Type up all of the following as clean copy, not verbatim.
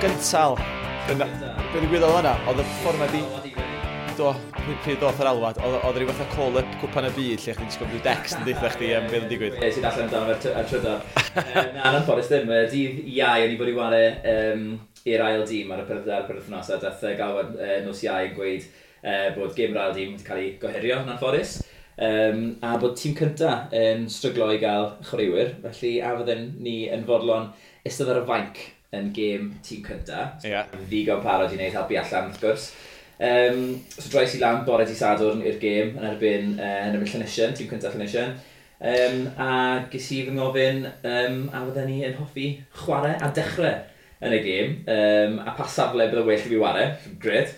Gyntal. Dyna, be ddigwyddodd yna, oedd y ffordd ma di... Do, pryd doth yr alwad, oedd rhyw fath o call-up Cwpan y Byd lle chdi'n disgwyl rhyw dext yn deutha chdi am beth yn digwydd. Ie, sy'n allan amdano fe ar trydar. Na, yn anffodus ddim. Dydd Iau, o'n i fod i ware i'r ail dîm ar y penwythnos, a dath galwad nos Iau yn gweud bod gêm yr ail dîm wedi cael ei gohirio yn anffodus. A bod tîm cynta yn stryglo i gael chwaraewyr, felly a fydden ni yn fodlon eistedd ar y fainc yn gêm tîm cynta. Ddigon parod i wneud helpu allan, wrth gwrs. So droes i lan bore di Sadwrn i'r gêm yn erbyn Llanisien, tîm cyntaf Llanisien. A ges i fy ngofyn a fydden ni yn hoffi chwarae a dechrau yn y gêm. A pa safle bydde well i fi ware. Gret,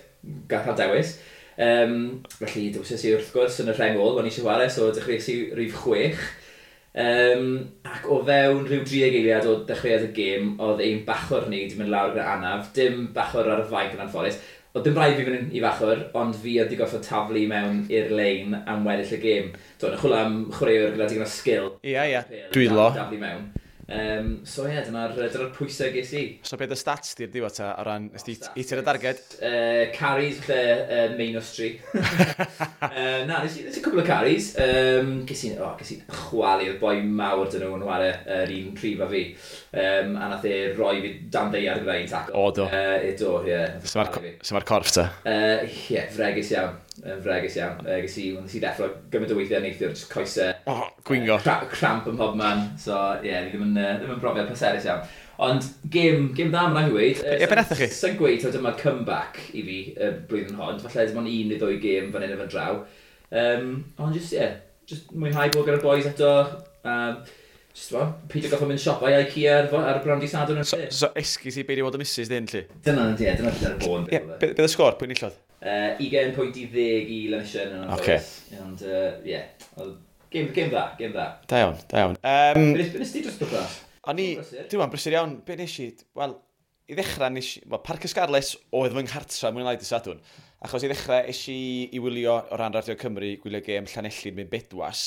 gall cael dewis. Felly dewisais i wrth gwrs yn y rheng ôl, o'n i eisiau chwarae, so dechreuais i rhif 6. Ac o fewn rhyw 30 eiliad o dechreuad y gêm, oedd ein bachwr ni wedi mynd lawr gyda anaf, dim bachwr ar y fainc yn anffodus. Oedd dim rhaid fi fynd i fachwr, ond fi oedd wedi gorfod taflu mewn i'r lein am weddill y gêm. Do, yn chwilio am chwaraewr gyda digon o sgil. Ia, ia. Dwylo. Daflu mewn. So ie, yeah, dyna'r pwysau ges i. So beth y stats di'r diwedd ta, o ran, nes di hitio'r darged? Carries, falle minus 3. Na, nes i cwbl o carries. Oh, ges i chwalu, oedd boi mawr dyn nhw'n ware yr un rhif a fi. A nath e roi fi dan ddaear gyda un tackle. O, do. Do, ie. So mae'r corff ta? Ie, fregus iawn. Yn fregus iawn. Nes i ddeffro gymaint o weithiau neithiwr, just coesau. Oh, gwingo. Cramp ym mhob man. So, ie, yeah, ddim yn brofiad pleserus iawn. Ond gêm dda, mae'n rhaid i weud. Ie, be nathoch chi? Sa'n gweud, taw dyma comeback i fi y blwyddyn hon. Falle dim ond un neu ddwy gêm fan hyn a fan draw. Ond just, ie, yeah, just mwynhau bod gyda'r boys eto. Just, well, peidio gorfod mynd siopa i IKEA ar y bron di Sadwrn yn So, lle. so esgus i beidio bod y missus dyn, lly? Dyna, ie, dyna'r bôn. Ie, be y sgôr? Pwy enillodd? 20 pwynt i 10 i Llanisien yn anffodus. Ond, ie, gêm dda, gêm dda. Da iawn, da iawn. Be nes ti dros wythnos? O'n i, Brysur. dwi'n brysur iawn, be nes i, wel, i ddechrau nes i, wel, Parc y Scarlets oedd fy nghartra mwy neu lai dy Sadwrn. Achos i ddechrau es i i wylio o ran Radio Cymru, gwylio gêm Llanelli'n mynd Bedwas.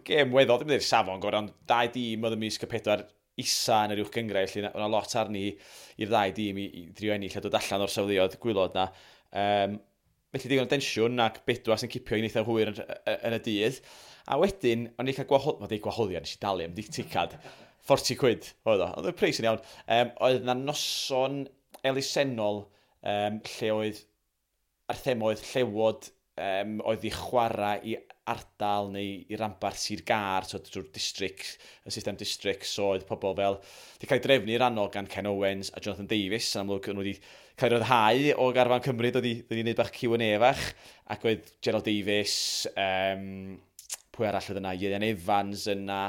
Gêm weddol, ddim yn dweud safon gorau, ond dau dîm oedd ymysg y pedwar isa yn yr uwch gynghrair, felly o'na lot arni i'r ddau dîm i drio ennill a dod allan o'r safleoedd gwaelod na. Felly digon o densiwn ac Bedwas yn cipio i'n eitha hwyr yn y dydd. A wedyn, o'n i'n cael gwahodd... Mae'n deud gwahoddiad, nes i dalu am ticad. 40 quid oedd o. Oedd y pris yn iawn. Oedd na noson elusennol lle oedd ar thema oedd llewod oedd i chwarae i ardal neu i ranbarth Sir Gâr, so drwy'r district, y system district, so oedd pobl fel, di cael ei drefnu rannol gan Ken Owens a Jonathan Davies, yn amlwg nhw wedi cael ei ryddhau o garfan Cymru, dod i wneud bach Q&A fach, ac oedd Gerald Davies, pwy arall oedd yna, Ieuan Evans yna,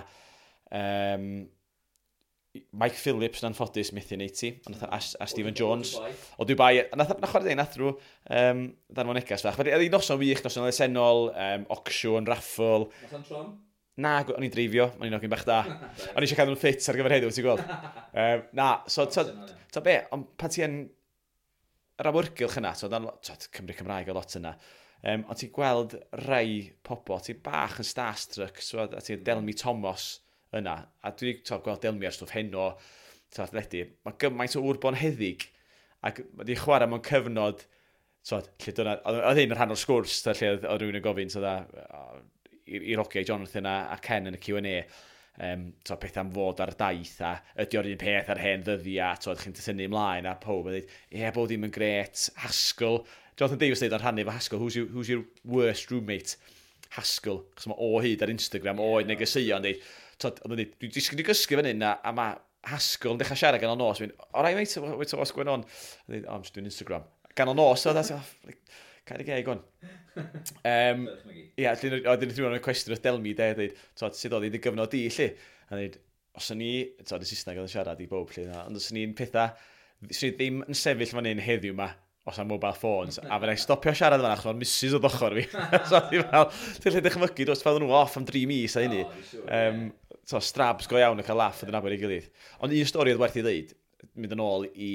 Mike Phillips yn anffodus methu neud ti, ond a Stephen Jones o Dubai, a nath, na chwarae deg, nath rhyw ddanfon negas fach. Felly, oedd hi noson wych, noson elusennol, auction, raffle. Noson trom? Na, o'n i'n dreifio, o'n i'n ogyn bach da. O'n i eisiau cadw'n ffit ar gyfer heddiw, ti'n gweld. Na, so, to be, ond pan ti yn yr awyrgylch yna, so, dan, to, Cymru Cymraeg o lot yna, ond ti'n gweld rai pobl, ti'n bach yn starstruck, so, a ti'n Delmi Thomas yna, a dwi wedi to, gweld Delmi ar stwff heno, to, athledu, mae gymaint o ŵr bonheddig, ac mae wedi chwarae mewn cyfnod, so, lle dyna, oedd hyn yn rhan o'r sgwrs, to, lle oedd rhywun yn gofyn, so, da, i'r hogiau Jonathan a Ken yn y Q&A, to, peth am fod ar daith a ydy o'r un peth ar hen ddyddiau, to, chi'n tynnu ymlaen a pob yn dweud, ie, yeah, bod ddim yn gret, Haskell, Jonathan Davies dweud ar rhannu efo Haskell, who's your worst roommate? Haskell, chos mae o hyd ar Instagram, o hyd negeseuon, dweud, to, oedd yn dweud, dwi'n disgwyl i gysgu fan hyn, a mae Haskell yn dechrau siarad ganol nos, mynd, all right mate, what's going on? A dweud, oh, I'm just doing Instagram. Ganol nos, oedd oh, like, cael ei geg on. Ie, oedd yn rhywun yn cwestiwn wrth Delmi, de, dweud, twod, sut oedd hi dy gyfnod di, lle? A dweud, os o'n i, twod, y Saesneg oedd yn siarad i bob, lle, na, ond os o'n i'n pethau, swn i ddim yn sefyll fan hyn heddiw ma, os am mobile phones, a fydda i stopio siarad fan achos mae'r missus oedd ochr fi. So, o'n i fel, ti'n lle dychmygu, dos fel nhw off am 3 mis a hynny. O, fi'n siŵr, So, strabs go iawn yn cael laff yn nabod ei gilydd. Ond un stori oedd werth i ddeud, mynd yn ôl i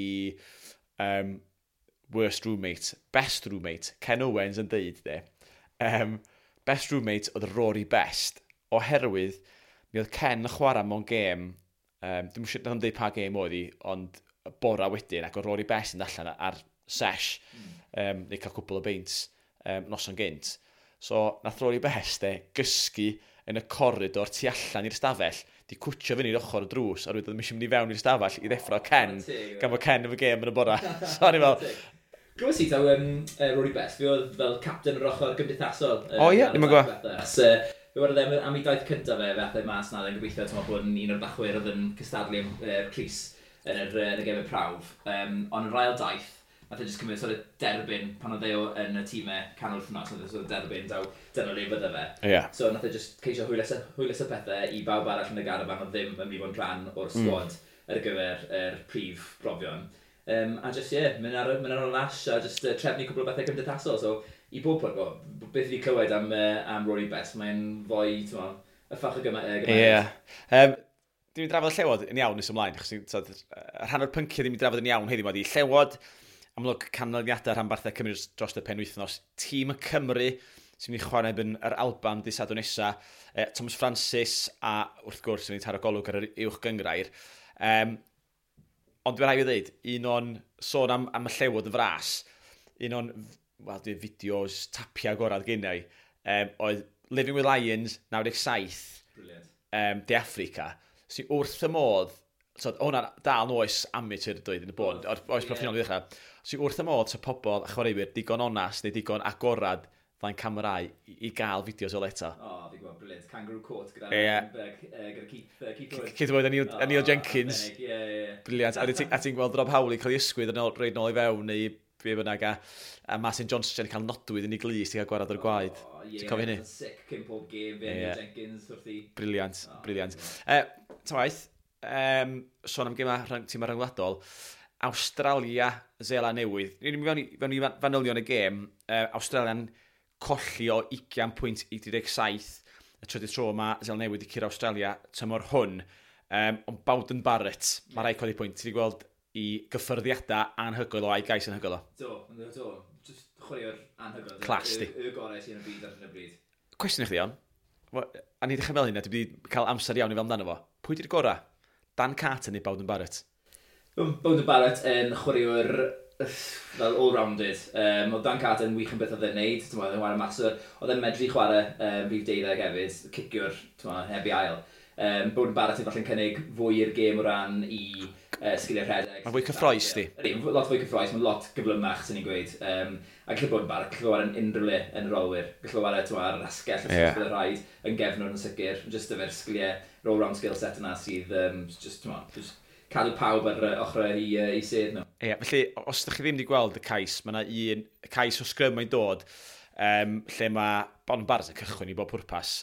worst roommate, best roommate, Ken Owens yn deud, de, best roommate oedd Rory Best, oherwydd mi oedd Ken yn chwarae mewn gêm, dwi'n siŵr, nath o'm deud pa gêm oedd hi, ond y bora wedyn, ac o Rory Best yn allan ar sesh, neu cael cwpl o beints noson gynt. So, nath Rory Best e, gysgu yn y coridor tu allan i'r stafell, di cwtio fyny i'r ochr y drws, a rwy'n ddim eisiau mynd i fewn i'r stafell i ddeffro Ken, gan fod Ken efo gêm yn y bora. So, o'n i fel... Glywes i taw Rory Best, fi oedd fel captain yr ochr gymdeithasol. O ie, ddim yn gwybod. Fe wedodd e am ei daith cyntaf fe, fe ath e mas na, yn gobeithio ti'n bod yn un o'r bachwyr oedd yn cystadlu am crys yn y gemau prawf. Ond yr ail daith, nath e jyst cymryd sort of derbyn pan oedd e yn y tîmau canol wythnos, nath e sort of derbyn daw dyna le fydde fe. So nath e jyst ceisio hwyluso pethau i bawb arall yn y garafan oedd ddim yn mynd i fod yn rhan o'r sgwad ar gyfer yr prif brofion. A jyst, ie, yeah, mynd ar y lash a jyst trefnu cwpl o bethau cymdeithasol. So, i bob pwrpas, well, beth fi wedi clywed am Rory Best, mae'n fwy, ti'n mo, y ffach o gymeriad. Ie. Yeah. Dim i drafod y Llewod yn iawn nes ymlaen, achos t'od, rhan o'r pynciau ddim i drafod yn iawn heddiw ma di Llewod, amlwg canlyniadau rhanbarthau Cymru dros y penwythnos, tîm y Cymru sy'n mynd i chwarae yn yr Alban dydd Sadwrn nesa, Thomas Francis a wrth gwrs yn ei taro golwg ar yr uwch gyngrair. Ond dwi'n rhaid i ddweud, un o'n sôn am y Llewod yn fras, un o'n, wel, dwi'n fideos tapia gorau gennau, oedd Living with Lions 97, Brilliant. De Africa, sy'n wrth y modd, so, hwnna'n dal yn oes amateur dweud yn y bôn, o'r oes proffesiynol i ddechrau, sy'n wrth y modd sa pobl a chwaraewyr digon onast neu digon agorad flaen camerau i gael fideos o eto. O, oh, fi'n gwybod, brilliant. Kangaroo Court gyda, gyda Keith Wood. Keith Wood a Neil Jenkins. Arbennig, ie. Brilliant. A ti'n gweld Rob Howley cael ei ysgwydd yn ôl, rhoid nôl i fewn neu be bynnag a Martin Johnson yn cael nodwydd yn ei glust i gael gwarad o'r gwaed. O, ie, Ti'n cofio hynny? Oedd yn sick cyn pob gêm, fe Neil Jenkins wrth i. Brilliant, O, brilliant. Ta waith, sôn am gema tîmau rhyngwladol, Awstralia, Seland Newydd. Ni'n mynd fewn i fanylion y gêm. Australia'n colli o 20 pwynt i 37. Y trydydd tro yma, Seland Newydd i curo Awstralia tymor hwn. Ond Beauden Barrett, mae rhaid codi pwynt. Ti wedi gweld i gyffyrddiadau anhygoel o a'i gais anhygoel o. Do, do. Just chwaraewr anhygoel. Class, di. Y gorau sy'n y byd ar hyn o bryd. Cwestiwn i chdi, iawn. A ni ddechrau fel hynna, dwi wedi cael amser iawn i fel amdano fo. Pwy di'r gorau? Dan Carter neu Beauden Barrett? Beauden Barrett yn chwaraewr fel all-rounded. Oedd Dan Carter yn wych yn beth oedd e'n neud. Ti'n oedd e'n chwarae maswr. Oedd e'n medru chwarae rhif 12 hefyd, ciciwr, ti'n heb i ail. Beauden Barrett yn falle'n cynnig fwy i'r gêm o ran i sgiliau rhedeg. Mae'n fwy cyffrous, di. Ydy, lot fwy cyffrous, mae'n lot gyflymach, sy'n ni'n gweud. A gallu bod yn Barrett, gallu chwarae yn unrhyw le yn yr olwyr. Gallu chwarae, ti'n ar yr asgell, os bydd rhaid, yn gefnwr yn sicr. Just efo'r sgiliau, roll-round skill set yna sydd, just, ti'n just cadw pawb ar ochrau i sedd nhw. Ie, felly, os ydych chi ddim wedi gweld y cais, mae yna un cais o sgrym mae'n dod, lle mae Beauden Barrett yn cychwyn i bob pwrpas,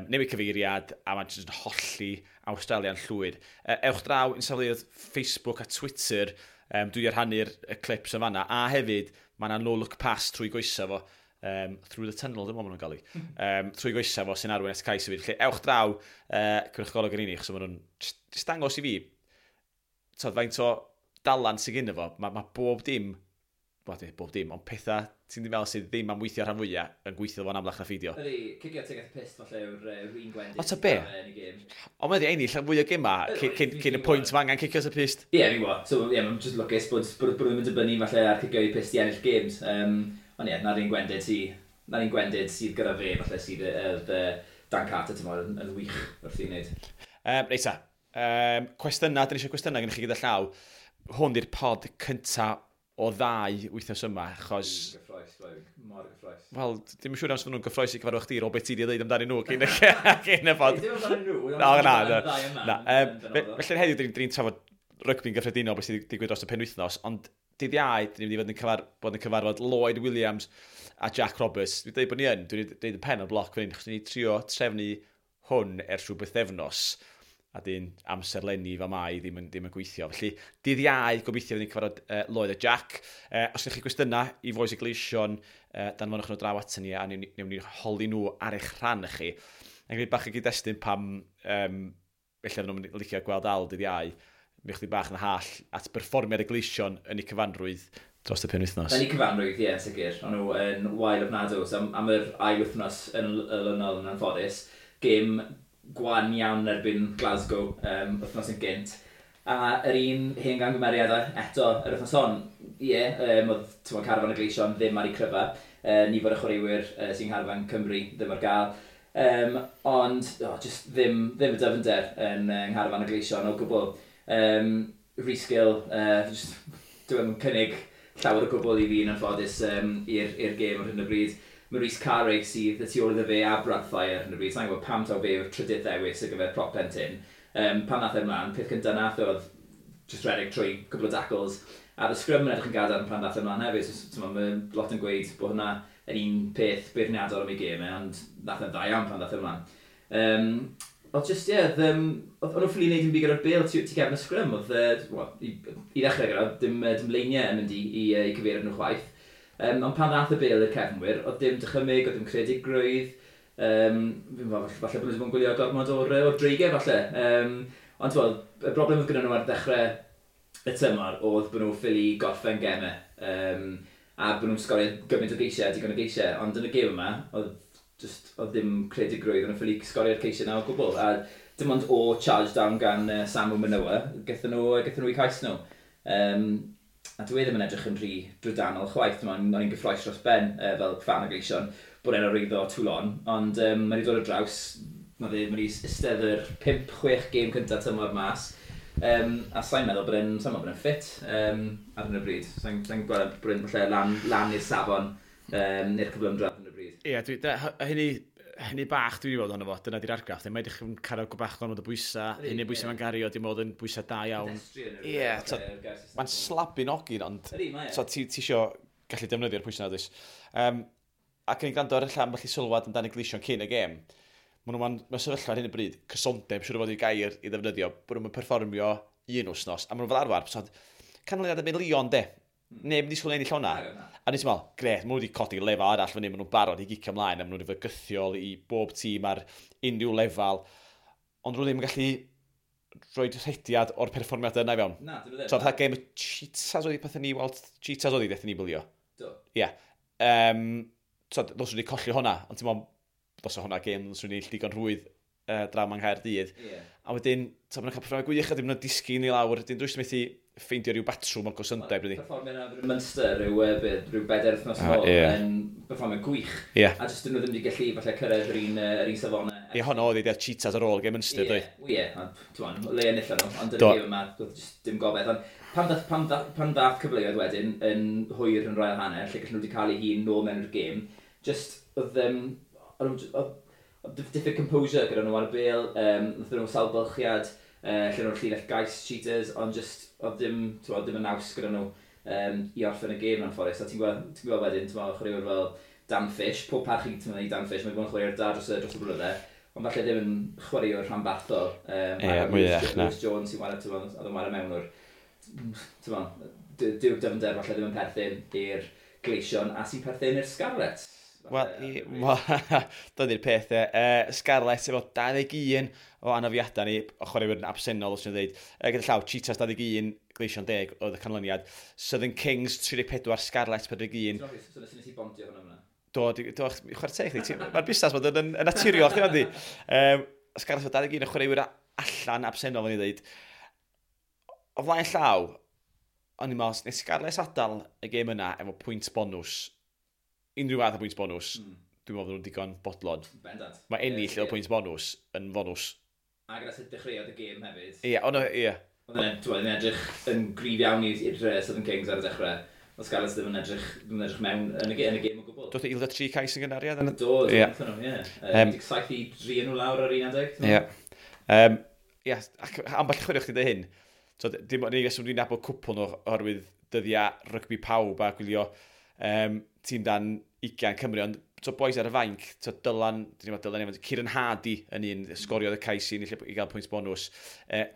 newid cyfeiriad, a mae'n jyst yn holli Awstralia'n llwyr. Ewch draw i'n safleoedd Facebook a Twitter, dwi wedi rhannu'r y clips yn fanna, a hefyd, mae yna no-look pass trwy goesa fo, through the tunnel, dwi'n meddwl maen nhw'n gael ei, trwy goesa fo sy'n arwain at cais hefyd. Felly, ewch draw, cymryd golwg yn unig, achos maen nhw'n just dangos i fi, t'od, faint o dalant sydd gynno fo, mae bob dim, wel, dim bob dim, ond pethau ti'n ddim fel sydd ddim am weithio rhan fwyaf yn gweithio fo'n amlach na pheidio. Ydy, cicio tuag at y pyst falle yw'r un gwendid. O, ta be? Yn y gêm. Ond mae wedi ennill fwy o gema cyn y pwynt mae angen cicio at y pyst. Ie, fi'n gwybod. So, ie, mae'n just lwcus bod nhw'n mynd dibynnu falle ar cicio i pyst i ennill games. Ond ie, na'r un gwendid sydd gyda fe, falle sydd Dan Carter, ti'n yn wych wrth i wneud. Reit ta, cwestiynau, dyn ni eisiau cwestiynau gennych chi gyda llaw. Hwn di'r pod cynta o ddau wythnos yma, achos... Dwi'n gyffrous, mor gyffrous. Wel, dim yn siŵr am nhw'n gyffrous i cyfarfod chdi, o beth ti wedi dweud amdanyn nhw cyn y pod. Dim amdanyn nhw, Na, na. ddau yma. Na, yn benodol. Felly heddiw, dyn ni'n trafod rygbi'n gyffredinol beth sydd wedi digwydd dros y penwythnos, ond dydd Iau, dyn ni'n mynd i fod yn, bod yn cyfarfod Lloyd Williams a Jack Roberts. Dwi'n dweud bod ni yn, dwi'n dweud y pen o'r bloc fan hyn, achos ni'n trio trefnu hwn ers rhyw bythefnos, a dyn amserlenni fa mai ddim yn gweithio. Felly, dydd Iau, gobeithio fydd ni'n cyfarfod Lloyd a Jack. Os ydych chi gwestiynau i Fois y Gleision, danfonwch nhw draw aton ni a newn ni holi nhw ar eich rhan chi. Yn gwneud bach o gyd-destun pam ella fydden nhw'n licio gweld Al dydd Iau, mi chdi bach yn hall at berfformiad y Gleision yn eu cyfanrwydd dros y penwythnos. Yn eu cyfanrwydd, ie, sicr. O'n nhw yn wael ofnadw. So, am yr ail wythnos yn olynol yn anffodus, gêm gwan iawn erbyn Glasgow wythnos yn gynt. A yr un hen gamgymeriad eto yr wythnos hon, ie, yeah, oedd carfan y Gleision ddim ar ei cryfa. Nifer o chwaraewyr sy'n carfan Cymru ddim ar gael. Ond oh, just ddim y dyfnder yn ngharfan y Gleision o gwbl. Rhys Gill, just, dwi'n cynnig llawer o gwbl i fi yn anffodus i'r gêm ar hyn o bryd. Maurice Carey sydd y tu ôl iddo fe a Brad Thyer ar hyn o bryd. Sa'n gwybod pam taw fe yw'r trydydd ddewis ar gyfer prop plentyn. Pan nath e ymlaen, peth cyntaf nath oedd just redeg trwy cwbl o tackles. A y scrum yn edrych yn gadarn pan nath e ymlaen hefyd. So, mae lot yn gweud bod hwnna yn un peth beirniadol am ei gêm e, ond nath e'n dda iawn pan nath e ymlaen. Oedd just, ie, yeah, oedd nhw'n ffili wneud yn byd gyda'r bêl tu gefn y scrum. Oedd, well, i ddechrau gyda, dim leiniau yn mynd i cyfeiriad nhw chwaith. Ond pan ddath y bêl i'r cefnwyr, oedd dim dychymyg, oedd dim creadigrwydd. Falle bod nhw wedi bod yn gwylio gormod o'r dreigiau, falle. Ond wel, y broblem oedd gyda nhw ar ddechrau y tymor oedd bod nhw ffili gorffen gemau. A bod nhw'n sgorio gymaint o geisiau, digon o geisiau. Ond yn y gêm yma, oedd ddim credigrwydd, o'n nhw'n ffili sgorio'r ceisiau na o gwbl. A dim ond o charge down gan Samu Manoa, gaethon nhw i cais nhw. A dwi ddim yn edrych yn rhy drydanol chwaith. O'n i'n gyffroes dros ben fel fan o Gleision bod e'n arwyddo Toulon, ond mae wedi dod ar draws, mae wedi eistedd yr 5-6 gêm cyntaf tymor mas, a sa'n meddwl bod e'n ffit ar hyn o bryd. Sa'n gweld bod e'n falle lan i'r safon i'r cyflymdra ar hyn o bryd. Ie, hynny bach dwi wedi weld ohono fo, dyna di'r argraff. Mae edrych yn cario bach gormod o bwysau, hynny bwysau mae'n gario, dim ond yn bwysau da iawn. Ie, mae'n slabu'n ogyn, ond ti isio gallu defnyddio'r pwysau na, does. Ac yn ei gwrando ar y ambell i sylwad amdano Gleision cyn y gêm, maen nhw'n mewn sefyllfa ar hyn o bryd, cysondeb, siŵr o fod i gair i ddefnyddio, bod nhw'n perfformio un wythnos, a maen nhw'n fel arfer, canlyniad yn mynd Lyon, de. Neb yn disgwyl ennill hwnna. A nes i'n meddwl, gret, maen nhw wedi codi lefel arall fyny, maen nhw'n barod i gicio ymlaen, a maen nhw wedi fygythiol i bob tîm ar unrhyw lefel, ond nhw ddim yn gallu rhoi rhediad o'r perfformiad yna i fewn. Na, dyn nhw ddim. So, fatha gêm y Cheetahs oedd pethau ni, weld Cheetahs oedd i ni bwlio. Do. Ie. So, ddylswn ni colli hwnna, ond ti'n meddwl, ddylswn hwnna gêm, ddylswn ni digon rhwydd draw yng Nghaerdydd. Yeah. A wedyn, so, maen nhw'n cael perfformiad gwych, a dim nhw'n disgyn i lawr, dyn drwy'n methu ffeindio rhyw batrwm o gysondeb. Perfformiad yna Munster, rhyw bedair wythnos nôl, yn perfformiad gwych. Yeah. A jyst dyn nhw ddim wedi gallu falle cyrraedd yr un safonau. Ie, honno oedd ei Cheetahs ar ôl gêm Munster, dwi. Ie, ond le enillon nhw, ond yn y gêm yma, doedd jyst dim gobaith. Ond pan ddath cyfleoedd wedyn yn hwyr yn rhael hanner, lle gallen nhw wedi cael ei hun nôl mewn i'r gêm, just oedd diffyg composure gyda nhw ar y bêl, nath nhw sawl bylchiad, lle nhw'n llinell gais Cheetahs, ond just oedd dim y naws gyda nhw i orffen y gêm yn anffodus. A ti'n gweld wedyn, chwaraewyr fel Dan Fish, pob parch i Dan Fish, mae wedi bod yn chwaraewr da dros y blynydde, ond falle ddim yn chwaraewr rhanbarthol. Lewis Jones sy'n chwarae, oedd yn chwarae mewn o'r, dyw'r dyfnder falle ddim yn perthyn i'r Gleision a sy'n perthyn i'r Scarlets. Wel, dyna'r peth e. Scarlets efo 21 o anafiadau ni, o chwaraewyr yn absennol, os ni'n dweud. Gyda llaw, Cheetahs 21, Gleision 10 oedd y canlyniad. Southern Kings 34, Scarlets 41. So nes i bondio hwnna fyna? Do, chwarae teg chdi. Mae'r busnes bod yn naturiol, chdi fandi. Scarlets efo 21 o chwaraewyr allan absennol, o'n i dweud. O flaen llaw, o'n i'n meddwl, nes Scarlets adael y gêm yna efo pwynt bonws, unrhyw fath o pwynt bonws, dwi'n meddwl nhw'n digon bodlon. Bendant. Mae ennill o pwynt bonws yn fonws. A gyda sut dechreuodd y gêm hefyd. Ie, ond ie. Oedd yn edrych yn gryf iawn i'r Southern Kings ar y dechrau. Oedd Scarlets ddim yn edrych mewn yn y gêm o gwbl. Doedd ildio 3 cais yn gynnar, ie? Do, ie. 17-3 nhw lawr ar un adeg. Ie. Ie, ac ambell chwarae chdi dy hyn. So, dim ond un reswm dwi'n nabod cwpl nhw oherwydd dyddiau rygbi pawb a gwylio tîm dan 20 Cymru, ond so boys ar y fainc, so Dylan, Dylan Evans, Kieran Hardy yn un, sgoriodd y cais i gael pwynt bonws,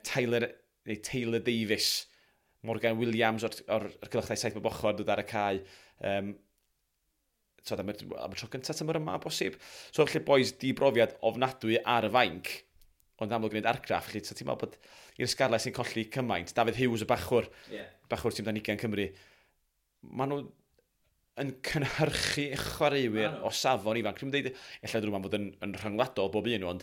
Taylor Davies, Morgan Williams o'r cylchdau 7 bob ochr dod ar y cae, so, am y tro gyntaf tymor yma bosib. So felly boys di brofiad ofnadwy ar y fainc, ond amlwg gwneud argraff, felly so, ti'n meddwl bod i'r Scarlets sy'n colli cymaint, David Hughes y bachwr, bachwr tîm dan 20 Cymru, maen nhw yn cynhyrchu chwaraewyr o safon ifanc. Dwi'n dweud, ella drwy fod yn rhyngwladol bob un, ond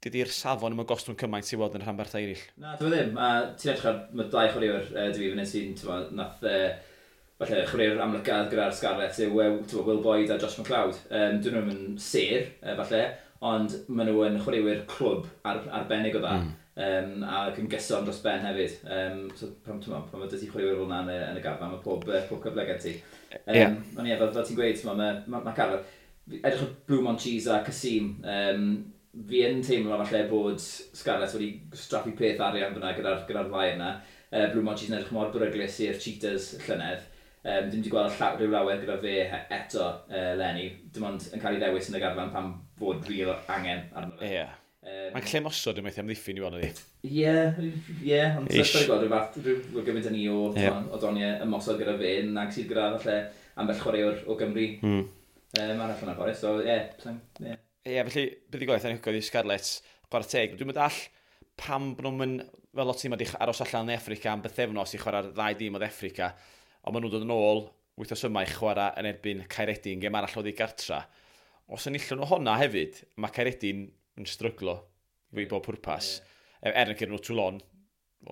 Dydy'r safon ddim yn gostwng cymaint i weld yn rhanbarthau eraill. Na, dwi ddim. A ti'n edrych ar, mae dau chwaraewr dwi fan hyn sy'n, ti'n nath, falle chwaraewr amlycaf gyda'r Scarlets yw Will Boyd a Josh McLeod. Dyn nhw'n yn sêr, falle, ond maen nhw yn chwaraewyr clwb arbennig o dda. Ac yn gyson dros ben hefyd. So pan, ti'n pan mae dydy chwaraewyr fel yna yn y garfan, mae pob cyfle gen ti. Ond ie, fel ti'n gweud, mae carfan. Edrych ar Blue Monchese a Kasim, fi yn teimlo falle bod Scarlets wedi straffu peth arian fyna gyda ddau yna. Blue Monchese yn edrych mor beryglus i'r Cheetahs llynedd. Dim wedi gweld rhyw lawer gyda fe eto leni. Dim ond yn cael ei ddewis yn y garfan pan fod real angen arno fe. Ie. Mae'n lle mosod yn methu amddiffyn i weld ydi. Ie, ond ti'n gweld rhyw fath, rhyw gymaint ni o doniau ymosod gyda fe, nag sydd gyda falle ambell chwaraewr o Gymru. Arall yna ffordd, so ie. Yeah. Ie, felly, buddugoliaeth anhygoel i Scarlets, chwarae teg. Dwi'n meddwl pam bod nhw'n mynd, fel lot tîm wedi aros allan yn Affrica am bythefnos i chwarae'r ddau dîm o Affrica, ond maen nhw'n dod yn ôl wythnos yma i chwarae yn erbyn Caeredin, gêm arall oddi gartra. Os enillwn nhw honna hefyd, mae Caeredin yn stryglo i bob pwrpas. Yeah. Er yn cyrraedd nhw Toulon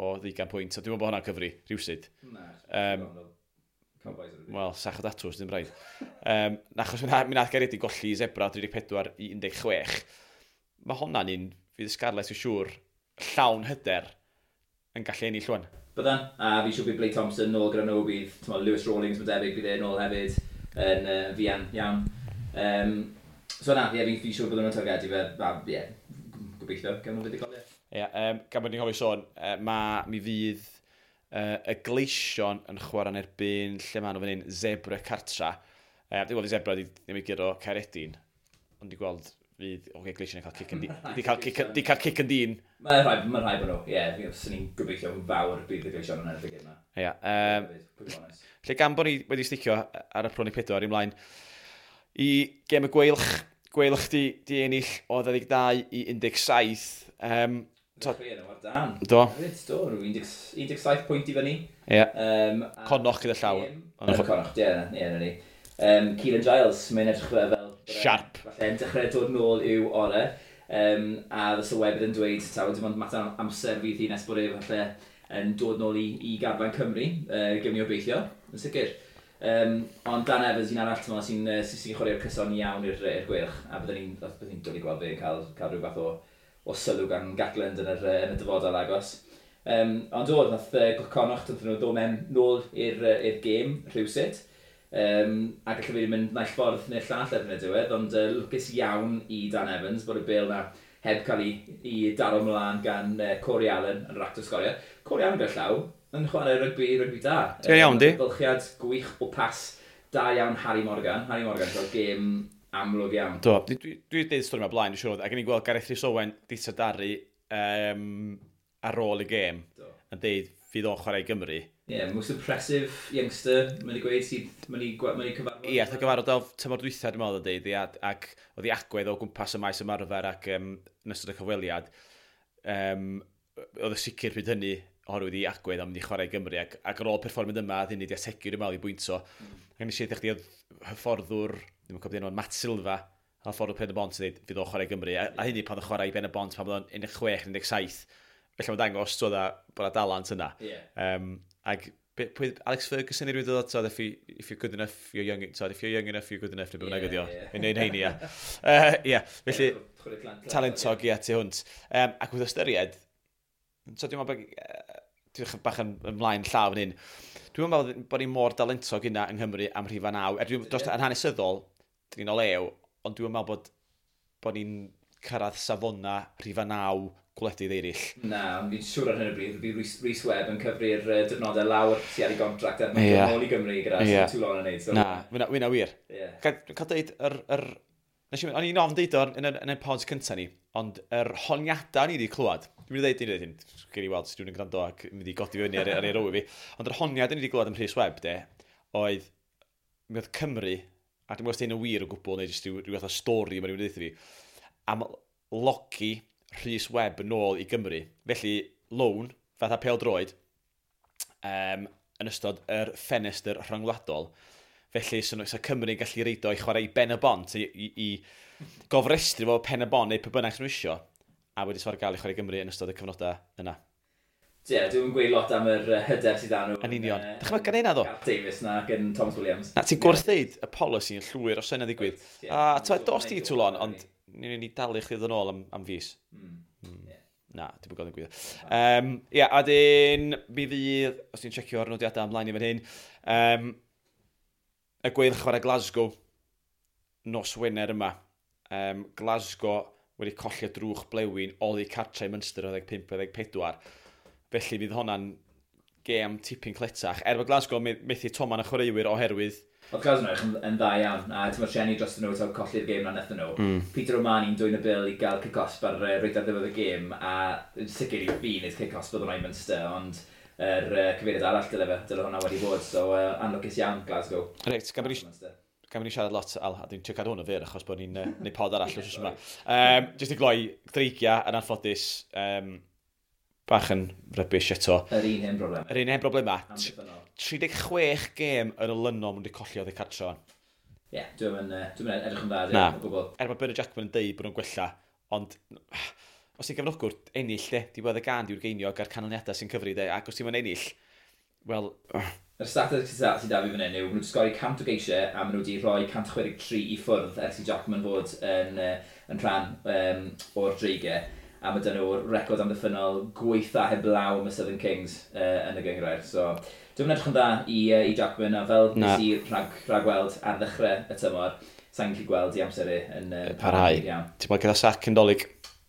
o 20 pwynt, a dwi'n meddwl bod hwnna'n cyfri, rhywsyd. Na, wel, sach o datws, ddim rhaid. Achos mi nath Gaeredi golli i Zebra 34 i 16. Mae hwnna'n un, fydd Scarlets yn siŵr, llawn hyder yn gallu ennill llwan. Byddan, a fi siŵr bydd Blake Thompson nôl gyda nhw, bydd t'mo, Lewis Rawlings, mae'n debyg, bydd e nôl hefyd yn fuan iawn. So na, ie, fi siŵr byddwn nhw'n targedu fe, a ie, gobeithio, gawn nhw fuddugoliaeth. Ie, gan bod ni'n cofio sôn, mi fydd y Gleision yn chwarae yn erbyn lle maen nhw fan hyn, Zebra Cartra. Dwi'n gweld i Zebra ddim i guro Caeredin, ond dwi'n gweld fydd, oce, Gleision yn cael cic yn di cael cic yn dyn. Mae'n rhaid bod nhw, ie, swn i'n gobeithio fawr bydd y Gleision yn ennill y gêm yma. Ie, lle gan bod ni wedi sticio ar y proni 4 ymlaen i gêm y Gweilch, Gweilch di ennill o 22 i 17. Dan. Do. Do, 17 pwynt i fyny. Ie. Connacht gyda llaw. Connacht, ie, na ni. Keelan Giles, mae'n edrych fel... Sharp. Falle'n dechrau dod nôl i'w orau. A y sylwebydd yn dweud, taw, dim ond mater amser fydd hi nes bod e falle yn dod nôl i garfan Cymru. Gewn ni obeithio, yn sicr. Ond Dan Evans, un arall sy'n chwarae'r cyson iawn i'r Gweilch. A byddwn ni'n dod i gweld fe yn cael rhyw fath o sylw gan Gatland yn y dyfodol agos. Ond do, nath Connacht, nath nhw ddod mewn nôl i'r gêm rhywsut. A gallu fi mynd naill ffordd neu'r llall erbyn y diwedd, ond lwcus iawn i Dan Evans bod y bêl na heb cael ei daro mlaen gan Corey Allen yn yr act o sgorio. Corey Allen gyda llaw yn chwarae rygbi da. Ti'n iawn, di? Bylchiad gwych o pas da iawn Harry Morgan. Harry Morgan fel gêm amlwg iawn. Do, dwi wedi deud stori yma blaen, dwi'n siŵr, ac o'n i'n gweld Gareth Rhys Owen di trydaru ar ôl y gêm, yn deud fydd o'n chwarae i Gymru. Ie, yeah, most impressive youngster, mae'n ei gweud sydd, mae'n ei cyfarfod. Ie, yeah, gyfarfod o tymor dwytha, dwi'n meddwl, yn deud, ac oedd ei agwedd o gwmpas y maes ymarfer ac yn ystod y cyfweliad, oedd y sicr pryd hynny, oherwydd ei agwedd am mynd i chwarae i Gymru, ac ar ôl perfformiad yma, oedd hynny wedi ategu, dwi'n meddwl, i bwynto. Ac nes i ddweud chdi, oedd hyfforddwr, ddim yn cofio enw, Matt Silva, hyfforddwr Pen y Bont, yn dweud, fydd o'n chwarae i Gymru. A hynny pan oedd chwarae i Ben y Bont, pan oedd o'n 16, 17. Felly mae'n dangos bod yna dalent yna. Yeah. Ac pwy, Alex Ferguson i rywun dod, so, if you're good enough, you're young, so, if you're young enough, you're good enough, neu beth bynnag ydi o. Yn ein heini, ia. Ie, felly, talentog, ie, tu hwnt. Ac wrth ystyried, so dwi'n meddwl dwi'n bach yn ymlaen llaw fan hyn, dwi'n meddwl bod ni mor dalentog yna yng Nghymru am rhifa 9. Er dwi'n dros yn hanesyddol, dyn ni'n olew, ond dwi'n meddwl bod ni'n cyrraedd safona rhifa 9 gwledydd eraill. Na, ond fi'n siŵr ar hyn o bryd, bydd Rhys Webb yn cyfri'r diwrnodau lawr sydd ar ei gontract er mwyn nôl i Gymru gyda Toulon yn neud. So. Na, wyna wir. Yeah. Cael deud, o'n i'n ofn deud o'r yn y pods cyntaf ni, ond yr honiadau ni wedi clywed, dwi'n mynd i ddeud hyn, gen i weld sydd dwi'n gwrando ac mynd i godi fyny ar ei row i fi, ond yr honiad ni wedi clywed am Rhys Webb, de, oedd, mi oedd Cymru, a dwi'n gwybod os hyn yn wir o gwbl, neu jyst rhyw fath o stori mae rhywun wedi dweud fi, am logi Rhys Webb yn ôl i Gymru. Felly, loan, fatha pêl-droed, yn ystod yr ffenestr rhyngwladol. Felly, so Cymru'n gallu reido i chwarae i Ben y Bont, i gofrestru fo Pen y Bont neu pe bynnag nhw isio, a wedi sfar gael i chwarae Gymru yn ystod y cyfnodau yna. Ie, yeah, dwi'n gweud lot am yr hyder sydd â nhw. Yn union. Dychmyga hynna ddo. Gareth Davies na gen Thomas Williams. Na, ti'n gwrthdeud y polisi yn llwyr os yna ddigwydd. A ti'n dos ti Toulon, ond ni'n ni dalu chdi ddod yn ôl am fus. Yeah. Na, dwi'n gwybod yn gwybod. Ia, a dyn, mi fydd, os ti'n checio'r nodiadau ymlaen i fan hyn, y Gweilch chwarae Glasgow nos Wener yma. Glasgow wedi colli drwch blewyn oddi cartre i Munster 15-14. Felly fydd hwnna'n gêm tipyn cletach. Er bod Glasgow methu toman y chwaraewyr oherwydd. Oedd Glasgow yn edrych yn dda iawn, a ti'n trueni dros nhw taw colli'r gêm na nethon nhw. Peter O'Mahony'n dwyn y bil i gael cic-osb ar reit ar ddiwedd y gêm, a yn sicr i fi wneud cic-osb oedd hwnna i Munster, ond yr cyfeiriad arall dyle hwnna wedi bod, so anlwcus iawn Glasgow. Reit, gan bod ni siarad lot, Al, a dwi'n trio cadw hwn o fyr, achos bod ni'n neud pod arall wrth yma. Jyst i gloi, Dreigia yn anffodus, bach yn rubbish eto. Yr un hen broblem. Yr un hen broblema. Amddiffynnol. 36 gêm yn olynol maen nhw wedi colli oddi cartre. Ie, yeah, dwi'n edrych yn dda, Na. o gwbl. Er bod Bernard Jackman yn deud bod nhw'n gwella, ond os ti'n gefnogwr, ennill de, diwedd y gan diw'r geiniog a'r canlyniadau sy'n cyfri de, ac os ti'n mynd ennill, wel. Yr statistics sydd da fi fan hyn yw, maen nhw wedi sgori 100 o geisiau a maen nhw wedi rhoi 163 i ffwrdd ers i Jackman fod yn rhan o'r Dreigiau. A mae dyn nhw'r record amddiffynnol gweitha heblaw am y Southern Kings yn y gynghrair. So, dwi'n edrych yn dda i Jackman, a fel nes i rhagweld ar ddechrau y tymor, sa'n gallu gweld i amser e yn parhau. Iawn. Ti'n bod gyda sac cyn Dolig?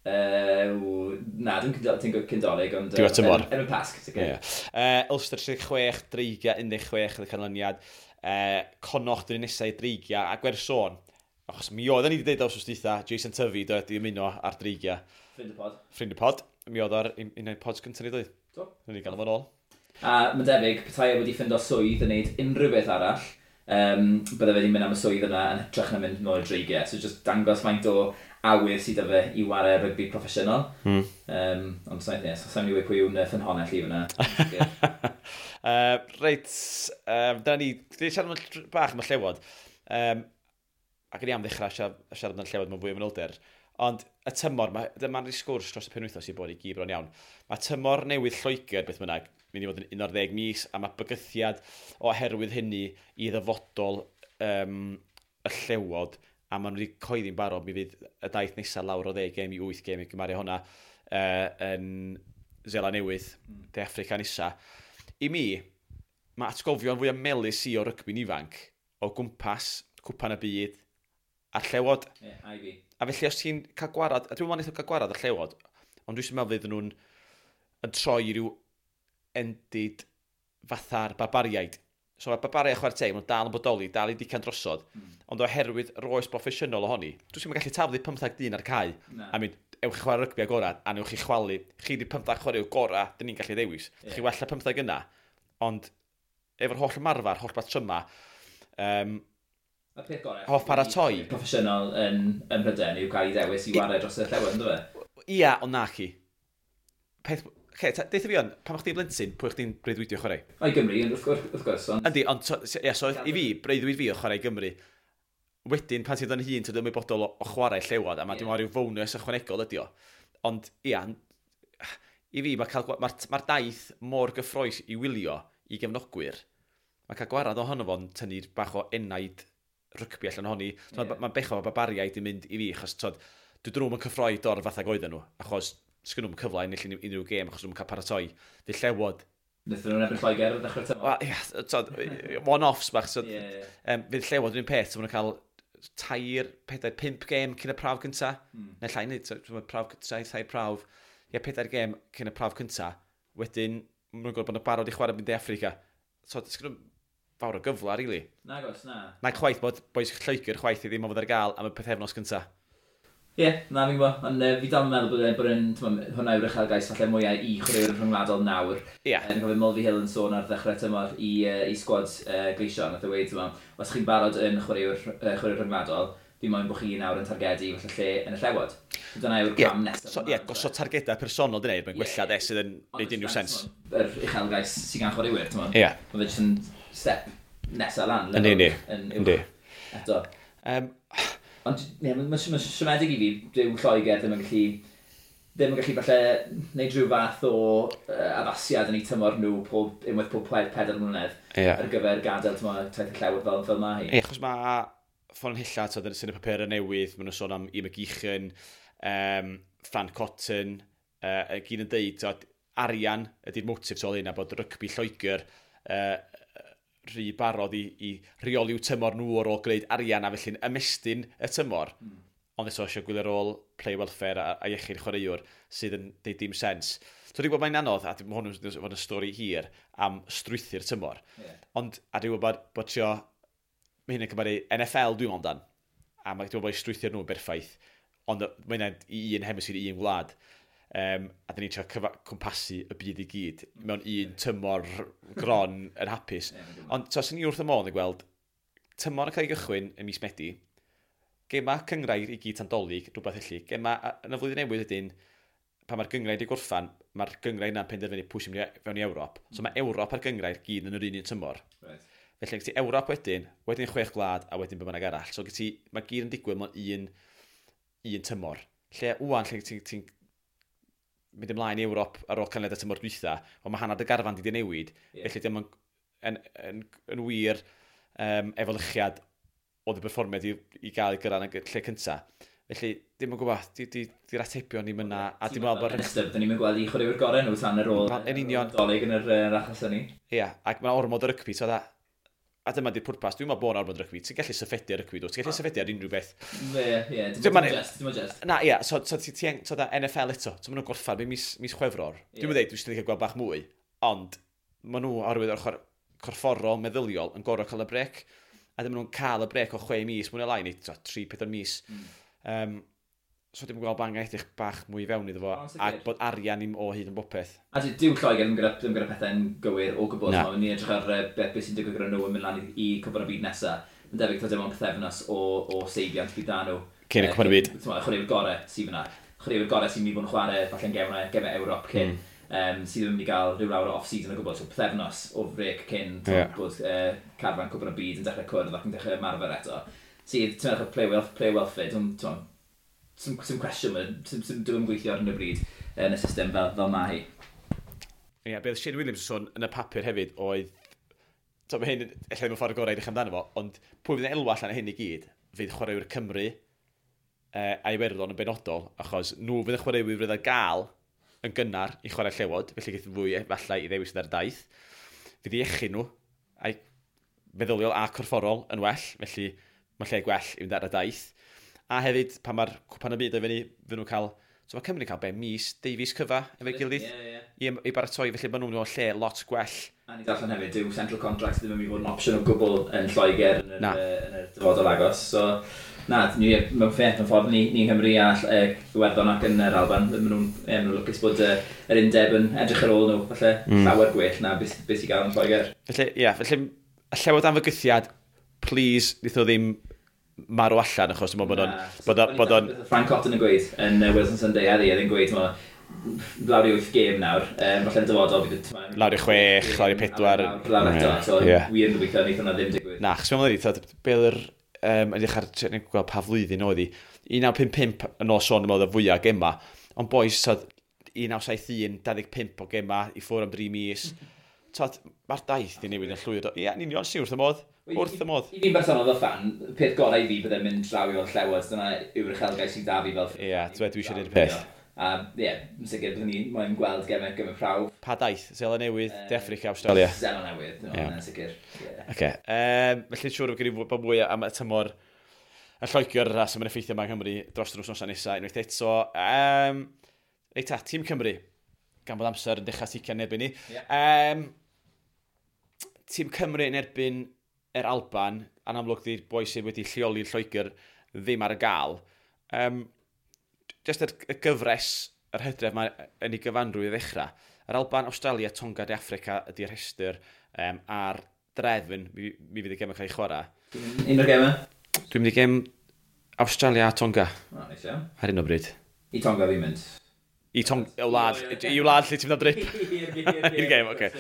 Na, dwi'n cyn Dolig, ond Diwedd tymor. Erbyn Pasg, sicr. Yeah. Ulster 36, Dreigia 16 oedd y canlyniad. Connacht yn nesau i Dreigia, a gwerth sôn. Achos mi oedden ni wedi dweud wsos dwytha, Jason Tyfi dod i ymuno ar Dreigia. Ffrind y pod. Ffrind y pod. Mi oedd ar un o'r pods gyntaf ni dweud. Do. Ni wedi gael fo'n ôl. A mae'n debyg, petai e wedi ffindo swydd yn neud unrhyw beth arall, bydde fe wedi mynd am y swydd yna yn hytrach na mynd nôl i'r Dreigiau. So just dangos faint o awydd sydd 'da fe i ware rygbi proffesiynol. Ond sa'n yes, sa'n mynd i weud pwy yw'n ffynhonnell i fyna. Reit, dyna ni, dwi siarad am bach am y Llewod. Ac o'n i am ddechrau siarad am y Llewod mewn fwy o manylder. Ond y tymor, dyma'n rhi sgwrs dros y penwythnos i bod i gyd bron iawn. Mae tymor newydd Lloegr, beth bynnag, mynd i fod yn 11 mis, a mae bygythiad oherwydd hynny i ddyfodol y Llewod, a maen nhw wedi coeddi'n barod, mi fydd y daith nesaf lawr o 10 gêm i 8 gêm i gymaru hwnna yn Seland Newydd, De Affrica nesa. I mi, mae atgofion fwy o melys i o rygbi'n ifanc o gwmpas Cwpan y Byd a'r Llewod. Ie, yeah, a i fi. A felly os ti'n cael gwarad, a dwi'n meddwl wnaeth cael gwarad y Llewod, ond dwi'n meddwl fydden nhw'n yn troi i ryw endid fatha'r barbariaid. So mae'r barbariaid chwarae teg, maen nhw'n dal yn bodoli, dal i dican drosodd, ond oherwydd roes broffesiynol ohoni, dwi'n meddwl gallu taflu 15 dyn ar cae, a mynd, ewch chi chwarae rygbi agorad, a newch chi chwalu, chi di 15 chwarae gorau, dyn ni'n gallu ddewis. Yeah. Chi wella 15 yna, ond efo'r holl ymarfer, holl batryma, Y peth gorau hoff paratoi. Proffesiynol yn Prydain yw cael ei ddewis i ware dros y Llewod, ynddo fe? Ia, ond na chi. Peth, okay, deutha fi on, pan o'ch chdi'n blentyn, pwy o'ch chdi'n breuddwydio chwarae? O, i Gymru, wrth gwrs. Ond. Yndi, ond so, yeah, so i fi, breuddwyd fi o chwarae i Gymru. Wedyn, pan ti'n dod yn hun, ti'n ymwybodol o chwarae Llewod, a mae yeah. Dwi'n rhyw fonus ychwanegol ydi o. Ond, ia, i fi, mae'r ma daith mor gyffrous i wylio i gefnogwyr. Mae cael gwarad ohono fo'n tynnu bach o enaid rygbi allan ohoni. Yeah. Mae'n bechod o barbariaid i mynd i fi, achos tod, dwi nhw'n cyffroi dor fath ag oedden nhw, achos sgyn nhw'n cyfle ennill unrhyw gêm, achos nhw'n cael paratoi. Fydd Llewod. Nethon nhw'n erbyn Lloegr ar ddechrau'r tymor. Wel, ia, tod, one-offs bach. So, yeah, yeah. Fydd Llewod yn un peth, so maen nhw'n cael 3, 4, 5 gêm cyn y prawf cynta. Neu llai nid, so, prawf, 3 prawf. Ie, 4 gêm cyn y prawf cynta. Wedyn, maen nhw'n gwybod bod nhw'n barod i chwarae mynd i Affrica. So, sgyn nhw fawr o gyfle, really. Na gos, na. Na chwaith bod bois Lloegr chwaith i ddim o fod ar gael am y pythefnos cynta. Ie, yeah, na fi'n gwybod. Ond fi dal yn meddwl bod hwnna yw'r uchelgais falle mwyaf i chwaraewyr rhyngwladol nawr. Ie. Yeah. Yn cofio Mulvey Hill yn sôn ar ddechrau tymor i sgwad Gleision. Nath e weud, os chi'n barod yn chwaraewr rhyngwladol, fi moyn bod chi nawr yn targedu falle lle yn y Llewod. So dyna yw'r cam nesaf. So, ie, gosod targedau personol dyna yw'r gwella de sydd yn neud unrhyw sens. Yr uchelgais sydd gan chwaraewyr, ti'n Ie. Mae fe jyst yn step nesaf lan. Yndi, yndi. Eto. Ond ie, mae'n siomedig i fi, dyw Lloegr ddim yn gallu ddim yn gallu falle wneud rhyw fath o addasiad yn eu tymor nhw unwaith pob 4 mlynedd ar gyfer gadael tymor taith y Llewod fel mae hi. Ie, achos mae ffynonella, sy'n y papur newydd, maen nhw'n sôn am Ian McGeechan, Fran Cotton, gyd yn deud, tod, arian ydy'r motif tu ôl hyn, a bod rygbi Lloegr rhy barod i reoli'w tymor nhw ar ôl gwneud arian a felly'n ymestyn y tymor. Ond eto eisiau gwylio ar ôl play welfare a iechyd chwaraewr sydd yn deud dim sens. So dwi'n gwybod mae'n anodd, a mae hwn yn fod yn stori hir am strwythur tymor. Ond, a dwi'n gwybod bod trio, mae hyn yn cymharu NFL dwi'n meddwl amdan. A mae dwi'n gwybod bod strwythur nhw'n berffaith, ond mae hynna'n i un hemisphere, i un wlad. A dyn ni'n trio cwmpasu y byd i gyd mewn un tymor gron yn hapus. Ond so, sy'n ni wrth y modd yn gweld tymor yn cael ei gychwyn yn mis Medi, gema cyngrair i gyd tan Dolig, rhywbeth felly. Gema yn y flwyddyn newydd ydyn, pan mae'r gyngrair wedi gorffan, mae'r gyngrair yna'n penderfynu pwy sy'n mynd fewn i Ewrop. So mae Ewrop a'r gyngrair gyd yn yr un un tymor. Felly, gen ti Ewrop wedyn, wedyn chwech gwlad, a wedyn be bynnag arall. So gen ti, mae gyd yn digwydd mewn un tymor. Lle wwan, lle ti'n ti mynd ymlaen i Ewrop ar ôl canlyniad y tymor dwytha, ond mae hanner dy garfan di newid. Felly dim yn wir efelychiad oedd y berfformiad i gael ei gyrraedd yn y lle cynta. Felly, dim yn gwybod, di'r atebion ddim yna, a dim meddwl bod. Yn dyn ni'n gweld i chwaraewyr gorau nhw tan yr ôl Yn union. Dolig yn yr achos hynny. Ia, ac mae'n ormod o rygbi, so a dyma di'r pwrpas, dwi'n meddwl bod yn ormod o rygbi. Ti'n gallu syffedu ar rygbi, dwi? Ti'n gallu syffedu ar unrhyw beth. Ie, dim ond just, dim ond just. Na, ia, so ti, so da NFL eto, so maen nhw'n gorffan mis Chwefror. Dwi'n meddwl, dwi'n eisiau gweld bach mwy, ond maen nhw oherwydd o'r ochr corfforol, meddyliol, yn gorfod cael y brec. A ddim nhw'n cael y brec o 6 mis, mwy na lai, neu 3-4 mis. So dwi'n gweld bod angen edrych bach mwy i fewn iddo fo, a bod arian i'm o hyd yn bopeth. A dyw Lloegr ddim gyda pethau'n gywir o gwbl. Na. Ni'n edrych ar beth sy'n digwydd gyda nhw yn mynd lan i Cwpan y Byd nesaf. Mae'n debyg taw dim ond pythefnos o seibiant bydd da nhw. Cyn y Cwpan y Byd. Chwaraewyr gorau sydd fyna. Chwaraewyr gorau sy'n mynd i fod yn chwarae falle'n gemau Ewrop cyn. Sydd ddim yn mynd i gael rhyw lawer o off-season o gwbl. So pythefnos o frec cyn bod carfan Cwpan y Byd yn dechrau cwrdd ac yn dechrau ymarfer eto. Sydd, ti'n meddwl, play welfare, sy'm cwestiwn, sy'm gweithio ar hyn o bryd yn y system fel mae hi. Ie, yeah, beth Shane Williams yn sôn yn y papur hefyd oedd, so mae hyn, ella ddim yn ffordd gorau i edrych amdano fo, ond pwy fydd yn elwa allan o hyn i gyd, fydd chwaraewyr Cymru a Iwerddon yn benodol, achos nhw fydd y chwaraewyr fydd ar gael yn gynnar i chwarae Llewod, felly geith fwy efallai i ddewis ar daith. Fydd iechyd nhw, a'i meddyliol a corfforol yn well, felly mae lle gwell i fynd ar y daith. A hefyd, pan mae'r Cwpan y Byd o fyny, fydd nhw'n cael. So mae Cymru'n cael be, mis, deufis cyfa efo'i gilydd Ie, ie. i baratoi, felly maen nhw'n mewn lle lot gwell. A ni darllen hefyd, dyw central contracts ddim yn mynd i fod yn opsiwn o gwbl yn Lloegr yn y dyfodol agos. So, na, ni, mewn ffeth, mewn ffordd, ni yng Nghymru a Iwerddon ac yn yr Alban, maen nhw'n ma nhw lwcus bod yr undeb yn edrych ar ôl nhw, falle llawer gwell na beth sy'n gael yn Lloegr. Felly, ie, yeah, felly, y Llewod am fygythiad, please, wnaeth o ddim marw allan, achos dwi'n meddwl bod o'n bod o'n Frank Cotton yn gweud yn Wales on Sunday heddi, oedd yn gweud, ma, lawr i wyth gêm nawr, falle'n dyfodol bydd y Lawr i 6, lawr i 4. Lawr eto, so wir yn gobeithio wneith hwnna ddim digwydd. Na, achos mewn wedi, be oedd yr, yn edrych ar, yn gweld pa flwyddyn oedd hi, 1955 yn ôl sôn, dwi'n meddwl, y fwyaf gema, ond boys, tod, 1971, 25 o gema i ffwrdd am 3 mis. Tod, mae'r daith di newid yn llwyr. Ie, yn union, si wrth y modd. Wrth y modd. I fi'n bersonol fel fan, peth gorau i fi bydde'n mynd draw i weld Llewod, dyna yw'r uchelgais sydd da fi fel Ie, dwi eisiau gwneud y peth. A ie, yn sicr byddwn ni moyn gweld gemau prawf. Pa daith? Seland Newydd, De Affrica, Australia? Seland Newydd, no, yn sicr. Ie. Oce. Felly siŵr bod gen i bod mwy am y tymor y Lloegr a sy'n effeithio yma yng Nghymru dros yr wythnosau nesaf unwaith eto. Reit ta, Tîm Cymru, gan bod amser yn dechrau ticio yn erbyn ni. Tîm Cymru yn erbyn yr Alban, a'n amlwg di'r boi sydd wedi lleoli Lloegr ddim ar y gael. Just y gyfres yr hydref mae yn ei gyfanrwydd i ddechrau. Yr Alban, Australia, Tonga, De Affrica ydy'r rhestr a'r drefn mi fydd y gemau cael ei chwarae. Un o'r gemau? Dwi'n mynd i gem Australia a Tonga O, neis iawn. ar hyn o bryd. I Tonga fi'n mynd. I wlad lle ti'n mynd am drip. I'r gem, oce.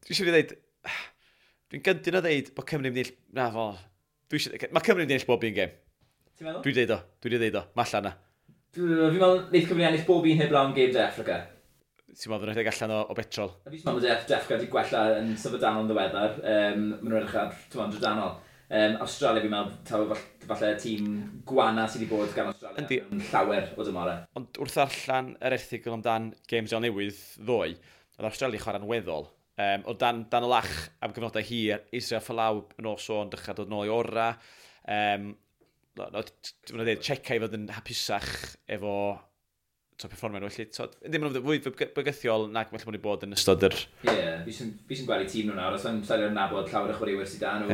Dwi eisiau dweud, dwi'n gyntaf o ddeud bod Cymru'n mynd i... Na, fo. Mae Cymru'n mynd i ennill bob un gem. Ti'n meddwl? Dwi'n deud o, dwi'n deud o, mae allan na. Fi'n meddwl, wneud Cymru ennill bob un heblaw am gêm De Affrica. Ti'n meddwl nhw'n rhedeg allan o betrol? Fi'n meddwl De Affrica wedi gwella yn syfrdanol yn ddiweddar. Maen nhw'n edrych ar, ti'n meddwl, drydanol. Australia, fi'n meddwl, taw falle tîm gwana sydd wedi bod gan Australia. Yndi. Yn llawer o dymorau. Ond wrth ddarllen yr erthygl amdan Games Seland Newydd ddoe, oedd Australia chwarae'n weddol. O dan y lach am gyfnodau hir, Israel Folau yn ôl sôn dechrau dod nôl i ora. Mae'n dweud, Cheika i fod yn hapusach efo performio nhw. Felly, ddim yn fwy bygythiol nag felly bod bod yn ystod yr. Ie, yeah, fi sy'n gweld i tîm nhw nawr, os yn sa'n nabod llawer o chwaraewyr sydd da nhw,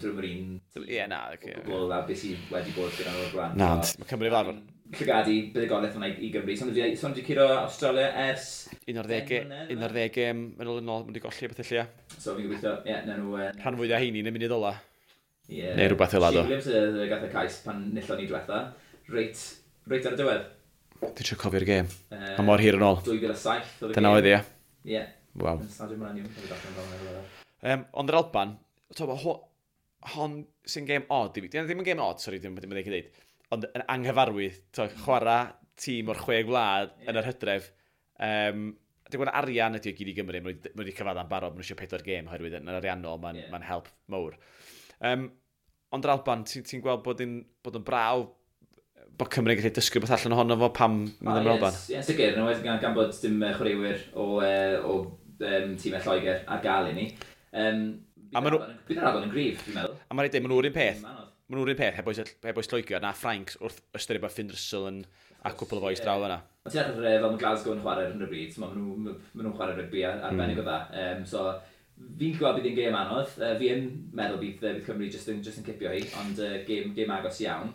drwy'n yr un. Ie, na. Okay, o gwbl a beth sydd wedi bod gyda nhw o'r blaen. Na, ond mae Cymru fel arfer. Llygadu buddugoliaeth yna i Gymru. So nhw wedi curo Australia ers 11 gêm yn ôl, maen wedi golli beth lle. So fi'n gobeithio, ie, na nhw. Rhan fwyaf heini yn y munud ola. Yeah. Neu rhywbeth fel 'na. Shane Williams gath y cais pan nillon ni diwetha. Reit ar y diwedd. Dwi'n trio cofio'r gêm. Mae mor hir yn ôl. 2007 oedd y gêm. Dyna oedd, ie. Ie. Waw. Yn Stadiwm Millennium. Ond yr Alban, hon sy'n gêm odd i fi. Ddim yn gêm odd, sori, ddim yn dweud. Ond yn anghyfarwydd, chwarae tîm o'r 6 gwlad yn yr hydref. Dwi'n gwybod arian ydy o gyd i Gymru, maen nhw wedi cyfadda'n barod, maen nhw eisiau 4 gêm oherwydd yn ariannol, mae'n help mawr. Ond yr Alban, ti'n gweld bod yn brawf bod Cymru'n gallu dysgu beth allan ohono fo pam mynd am yr Alban? Ie, sicr, yn enwedig gan bod dim chwaraewyr o tîmau Lloegr ar gael i ni. Bydd yr Alban yn gryf, dwi'n meddwl. A mae'n rhaid dweud, maen nhw'r un peth. Maen nhw'r un peth, heb oes Lloegr, na Ffrainc wrth ystyried bod Finn Russell yn a cwpl o fois draw yna. Ond ti'n edrych fel mae Glasgow yn chwarae ar hyn o bryd, maen nhw'n chwarae rygbi arbennig o dda. So, fi'n gweld bydd hi'n gêm anodd. Fi yn meddwl bydd Cymru just yn cipio hi, ond gêm agos iawn.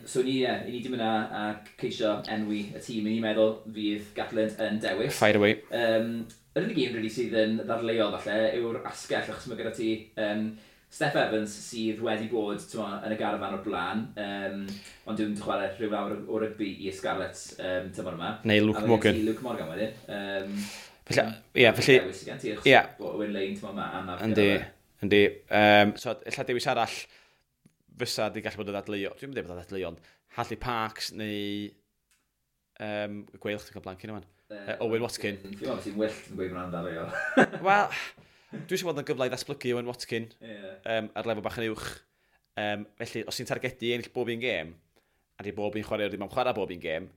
So ni di mynd a ceisio enwi y tîm. Ni'n meddwl fydd Gatland yn dewis. Fire away. Yr unig un really sydd yn ddadleuol falle yw'r asgell, achos mae gyda ti Steff Evans sydd wedi bod yn y garafan o'r blaen, ond dwi'n chwarae rhyw lawr o rygbi i Scarlets tymor yma. Neu Luke Morgan. Luke Morgan wedyn. Felly, ie. Owen Lane tymor yma. Yndi. So, ella dewis arall fysa di gallu bod yn ddadleuol. Dwi'n mynd bod yn ddadleuol, ond Hadley Parks neu Gweilch, dwi'n cael blank yn yma. Owen Watkin. Dwi'n meddwl sy'n wyllt yn gweud hwnna'n ddadleuol. Wel, dwi eisiau bod yn gyfle i ddatblygu Owen Watkin ar lefel bach yn uwch. Felly, os ti'n targedu ennill bob un gêm, a di bob un chwaraewr ddim am chwarae bob un gêm,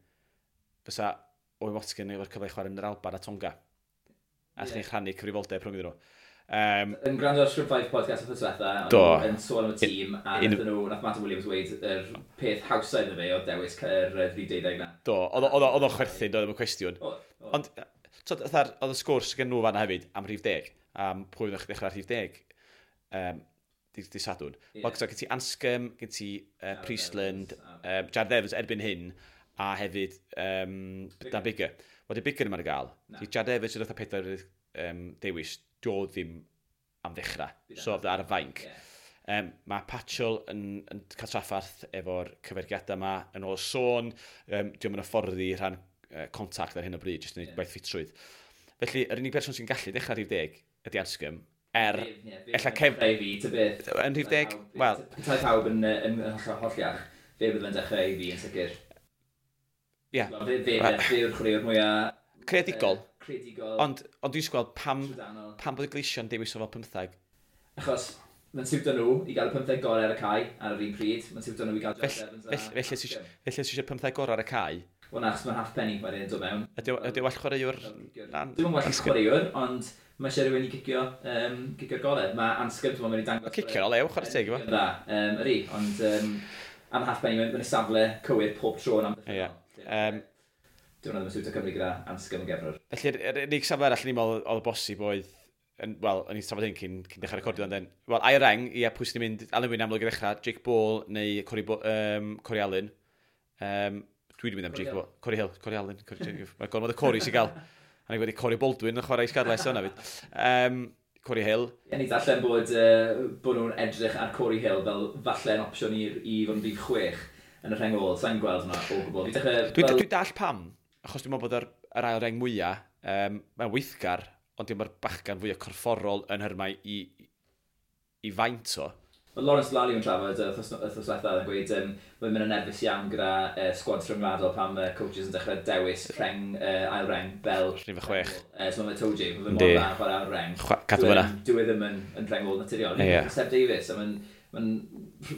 fysa Owen Watkin efo'r cyfle i chwarae yn yr Alban a Tonga. A chi'n rhannu cyfrifoldeb rhwng iddyn nhw. Yn gwrando ar Scrum 5 podcast wrth diwetha, yn sôn am y tîm, a nath Martin Williams weud yr peth hawsa iddo fe o dewis yr 12 na. Do, oedd o'n chwerthin, doedd ddim yn cwestiwn. Ond, oedd y sgwrs gen nhw fanna hefyd am rhif 10, am pwy oedd ddechrau rhif 10 di Sadwrn. Wel, gen ti Anscombe, gen ti Priestland, Jared Evans erbyn hyn, a hefyd Dan Biggar. Wel, di Biggar ddim ar gael. Di Jared Evans sydd oedd 4 dewis, dio ddim am ddechrau. So, ar y fainc. Mae Patchell yn cael traffarth efo'r cyfergiadau yma yn ôl sôn. Dio'm yn hyfforddi rhan contact ar hyn o bryd, jyst yn gwneud gwaith ffitrwydd. Felly, yr unig person sy'n gallu dechrau rhif 10 ydy Anscombe. Ella Kev. Yn rhif 10, wel. Petai pawb yn holliach, fe bydd yn dechrau i fi yn sicr. Ie. Fe yw'r chwaraewr mwyaf creadigol. Ond dwi'n gweld pam bod y Gleision dewis o fel 15. Achos mae'n siwtio nhw i gael y 15 gorau ar y cae ar yr un pryd. Mae'n siwtio nhw i gael Jared Evans. Felly os eisiau 15 gorau ar y cae. Wel na, achos mae'n half penny wedyn yn dod mewn. Ydy o well chwaraewr? Dwi'n well chwaraewr, ond mae eisiau rhywun i gicio'r golau. Mae Anscombe, dwi'n meddwl, dangos. Cicio'n olew, chwarae teg, efo. Dda, ydy, ond am half penny, mae'n safle cywir pob tro yn amddiffynnol. Ie. Dwi'n meddwl ddim yn siwtio Cymru gyda Anscombe yn gefnwr. Felly, yr unig safle arall ni'n meddwl oedd y bosib oedd, wel, o'n i'n trafod hyn cyn dechrau recordio, ond wel, ail reng, ie, pwy sy'n mynd, Alun Wyn amlwg i ddechrau, Jake Ball neu Corey Allen. Dwi wedi mynd am Jake Ball, Corey Hill, Corey Allen, mae gormod o Corey sy'n gael. A ni wedi Corey Baldwin yn chwarae i Scarlets yna fyd. Corey Hill. Ie, ni darllen bod nhw'n edrych ar Corey Hill fel falle yn opsiwn i fod yn rhif 6 yn y rheng ôl. Sa'n gweld hwnna o gwbl. Dwi'n dall pam, achos dwi'n meddwl bod yr ail reng mwyaf, mae'n weithgar, ond dwi'n meddwl bachgan fwyaf corfforol yn hyrmau i faint o. Mae Lawrence Lally yn trafod wythnos diwethaf yn gweud mae'n mynd yn nerfus iawn gyda squads rhyngwladol pan mae coaches yn dechrau dewis rheng, ail reng fel Rhif 6. So mae Toji, mae fe mor dda chwarae ail reng. Cadw fyna. Dyw e ddim yn rheng ôl naturiol. Yeah. Seb Davies, a mae'n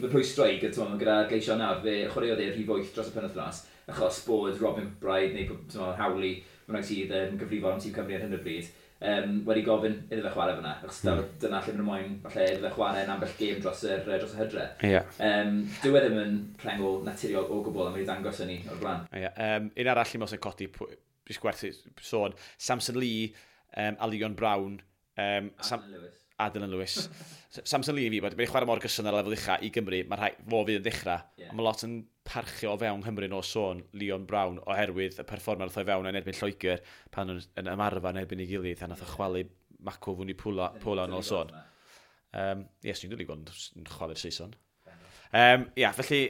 rhwystro i gyda, gyda Gleision nawr, fe chwaraeodd e rhif 8 dros y penwythnos, achos bod Robin McBryde neu Howley, mae'n sydd yn gyfrifol am tîm Cymru ar hyn o bryd, wedi gofyn iddo fe chwarae fyna, achos dyna lle maen nhw moyn, falle iddo fe chwarae yn ambell gêm dros y hydre. Yeah. Dyw e ddim yn rhengol naturiol o gwbl, a mae wedi dangos hynny o'r blaen. Yeah. Un arall i mewn sy'n codi, jyst gwerth sôn, Samson Lee, a Leon Brown, Lewis. A Dylan Lewis. Samson Lee i fi, bod wedi chwarae mor gyson ar lefel ucha i Gymru, mae rhai, fo fydd yn dechrau. Yeah. Mae lot yn parchio o fewn Nghymru o sôn Leon Brown oherwydd y perfformiad wrth o'i fewn yn erbyn Lloegr pan yn ymarfer yn erbyn ei gilydd a nath o chwalu Mako Vunipola yn ôl sôn. Yes, ni'n dod i gweld yn chwalu'r Saeson. Ia, felly,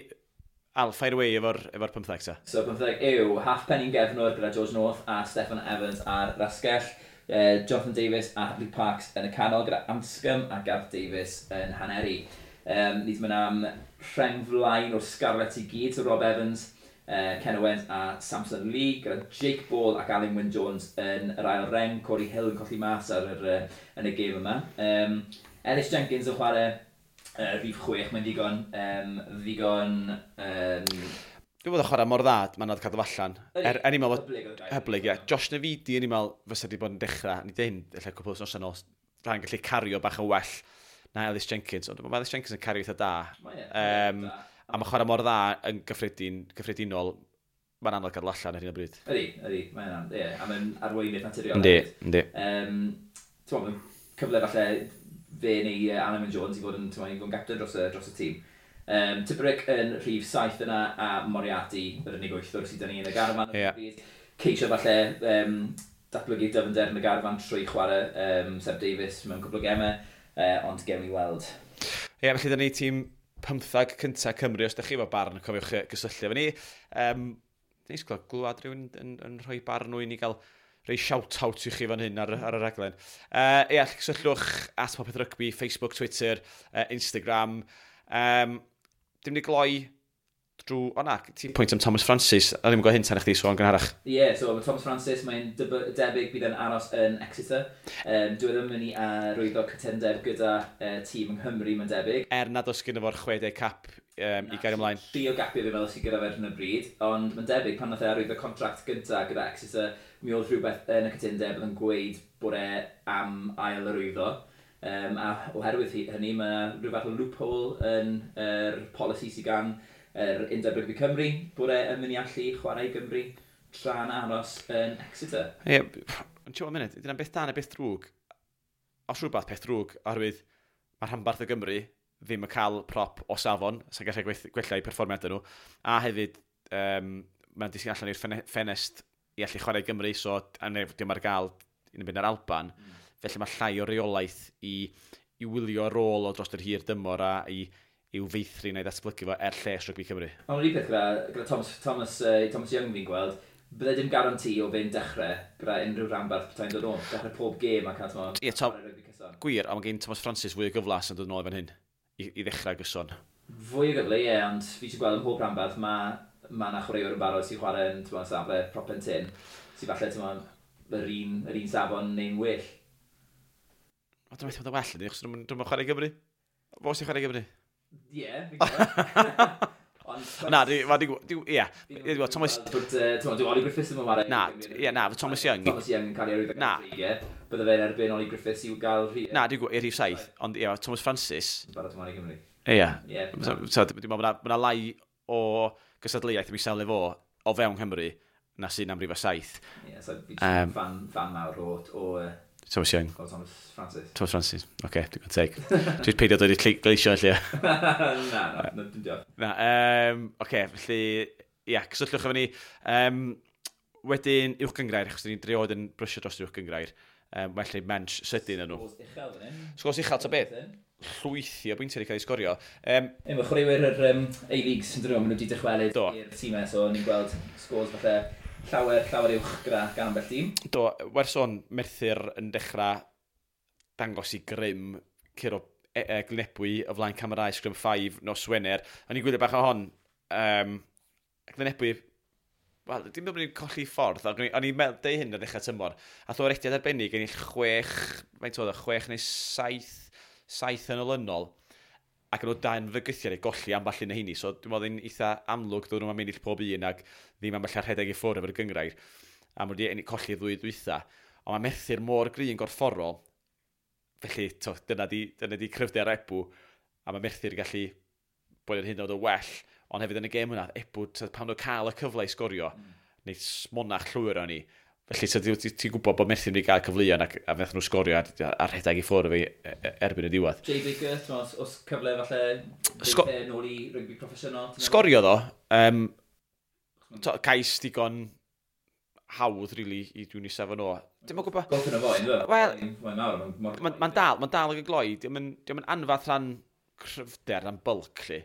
Al, fire away efo'r 15 ta. So 15 yw Halfpenny'n gefnwr gyda George North a Steffan Evans ar rasgell. Jonathan Davies a Luke Parks yn y canol gyda Anscombe a Gareth Davies yn haneri. Ni wedi mynd am rheng flaen o'r Scarlets i gyd, so Rob Evans, Ken Owens a Samson Lee, gyda Jake Ball ac Alun Wyn Jones yn yr ail reng, Corey Hill yn colli mas ar yn y gêm yma. Ellis Jenkins yn chwarae rhif 6, mae'n ddigon Dwi'n bod yn chwarae mor dda, mae'n nad cadw allan. Er i'n meddwl, hyblyg, ie. Josh Navidi, yn i'n meddwl, fysa wedi bod yn dechrau. Ni dweud, ella cwpl wythnosau nôl, rhan gallu cario bach yn well na Ellis Jenkins. Ond mae Ellis Jenkins yn cario eitha da. A mae chwarae mor dda yn gyffredinol, mae'n anodd gadw allan ar hyn o bryd. Ydy, mae'n anodd, ie. A mae'n arweinydd naturiol. Yndi. Ti'n meddwl, cyfle falle fe neu Alun Wyn Jones i fod yn, i fod yn gapten dros y tîm. Tipuric yn rhif 7 yna a Moriarty yr unig wythwr sydd 'da ni yn y garfan. Yeah. Ceisio falle datblygu dyfnder yn y garfan trwy chwarae Seb Davies mewn cwpl o gemau, ond gewn ni weld. Ie, yeah, felly 'da ni tîm 15 cyntaf Cymru, os ydych chi efo barn, cofiwch gysylltu efo ni. Neis glwad rhywun yn rhoi barn nhw i ni gael rhoi shout-out i chi fan hyn ar y raglen. Ie, cysylltwch at Popeth Rygbi, Facebook, Twitter, Instagram. Dim ni gloi drwy... O na, ti'n pwynt am Thomas Francis, a ddim yn gwybod hyn tan i chdi sôn gynharach. Ie, yeah, so mae Thomas Francis, mae'n debyg bydd yn aros yn Exeter. Dwi ddim yn mynd i arwyddo cytundeb gyda tîm yng Nghymru, mae'n debyg. Er nad oes gyda fo'r 60 cap i gael ymlaen. 3 o gapiau fi fel sydd gyda fe ar hyn o bryd, ond mae'n debyg pan nath e arwyddo contract gyntaf gyda Exeter, mi oedd rhywbeth yn y cytundeb oedd yn gweud bod e am ail arwyddo. A oherwydd hynny, mae rhyw fath o loophole yn yr polisi sydd gan yr Undeb Rygbi Cymru, bod e yn mynd i allu chwarae i Gymru tra'n aros yn Exeter. Ie, ond ti'n gwybod munud, dyna'n beth da neu beth drwg. Os rhywbeth peth drwg, oherwydd mae rhanbarth o Gymru ddim yn cael prop o safon, sy'n gallu gwella eu perfformiadau nhw, a hefyd mae'n disgyn allan i'r ffenest i allu chwarae i Gymru, so dim ar gael yn mynd ar Alban. Felly mae llai o reolaeth i wylio rôl o dros yr hir dymor a i'w feithrin a'i ddatblygu fo er lles rygbi Cymru. Ond yr un peth gyda Thomas Young fi'n gweld, bydde dim garanti o fe'n dechrau gyda unrhyw rhanbarth petai'n dod nôl. Dechrau pob gêm a cael rygbi cyson. Gwir, a mae gen Thomas Francis fwy o gyflas yn dod nôl fan hyn i ddechrau gyson. Fwy o gyfle, ie, ond fi eisiau gweld ym mhob rhanbarth mae 'na chwaraewr yn barod sy'n chwarae yn safle prop pen tyn, sy'n falle yr un safon neu'n well. O, dwi'n meddwl bod yn well ydy, achos dwi'n chwarae i Gymru. Fo sy'n chwarae i Gymru? Ie, fi'n gwybod. Na, ie. Thomas... Dwi'n Ollie Griffiths ddim yn chwarae. Na, ie, na, Thomas Young. Thomas Young yn cael ei arwyddo gan Dreigiau. Bydde fe'n erbyn Ollie Griffiths i'w gael rhif. Na, dwi'n gwybod, i'r rhif 7, ond ie, Thomas Francis. Barod ymlaen i Gymru. Ie. Dwi'n meddwl bod yna lai o gystadleuaeth yn safle fo o fewn Cymru na sy'n am rhif 7. Ie, so fi'n fan mawr o Thomas Young. O, Thomas Francis. Thomas Francis, oce, okay, dwi'n gwybod teg. Dwi'n peidio dod i'r gleisio, lle. Na, dim diolch. Na, oce, felly, ia, cysylltwch efo ni. Wedyn, uwch gynghrair, achos ni'n driod yn brysio dros uwch gynghrair. Felly, mensch sydyn yn nhw. Sgôrs uchel, fan hyn. Sgôrs uchel, ta beth? Llwythi o bwyntiau wedi cael ei sgorio. Mae chwaraewyr yr A-Leagues yn dyn nhw, maen nhw wedi dychwelyd i'r tîmau, so ni'n gweld sgôrs falle llawer uwch gyda gan ambell dîm. Do, werth sôn, Merthyr yn dechrau dangos i grym curo Glynebwy o flaen camerau Scrum 5 nos Wener. O'n i'n gwylio bach o hon. Glynebwy, wel, dim bod ni'n colli ffordd, o'n i'n meddwl deud hyn ar ddechrau tymor. A o'r rediad arbennig ennill 6, faint oedd o, 6 neu 7 yn olynol. Ac yn nhw dan fygythiad i golli ambell un o heini. So dwi'n meddwl yn eitha amlwg dod nhw'n ennill pob un ac ddim ambell rhedeg i ffwrdd efo'r gyngrair. A maen nhw wedi colli ddwy dwytha. Ond mae Merthyr mor gry yn gorfforol. Felly, to, dyna di cryfder Ebw. A mae Merthyr gallu bod yn hyn oed o well. Ond hefyd yn y gêm hwnna, Ebw, pan nhw'n cael y cyfle i sgorio, neu smonach llwyr o'n i. Felly, ti'n gwybod bod Merthyr wedi cael cyfleoedd ac a wnaethon nhw sgorio a rhedeg i ffwrdd fi erbyn y diwedd. Jay Baker, os cyfle falle nôl i rygbi proffesiynol? Sgorio ddo. Cais digon hawdd, really, i dwi'n isaf yn o. Dim yn gwybod. Golff yn y fo, ynddo? Wel, mae'n dal ag y gloi. Diolch yn anfath rhan cryfder, rhan bulk, lle.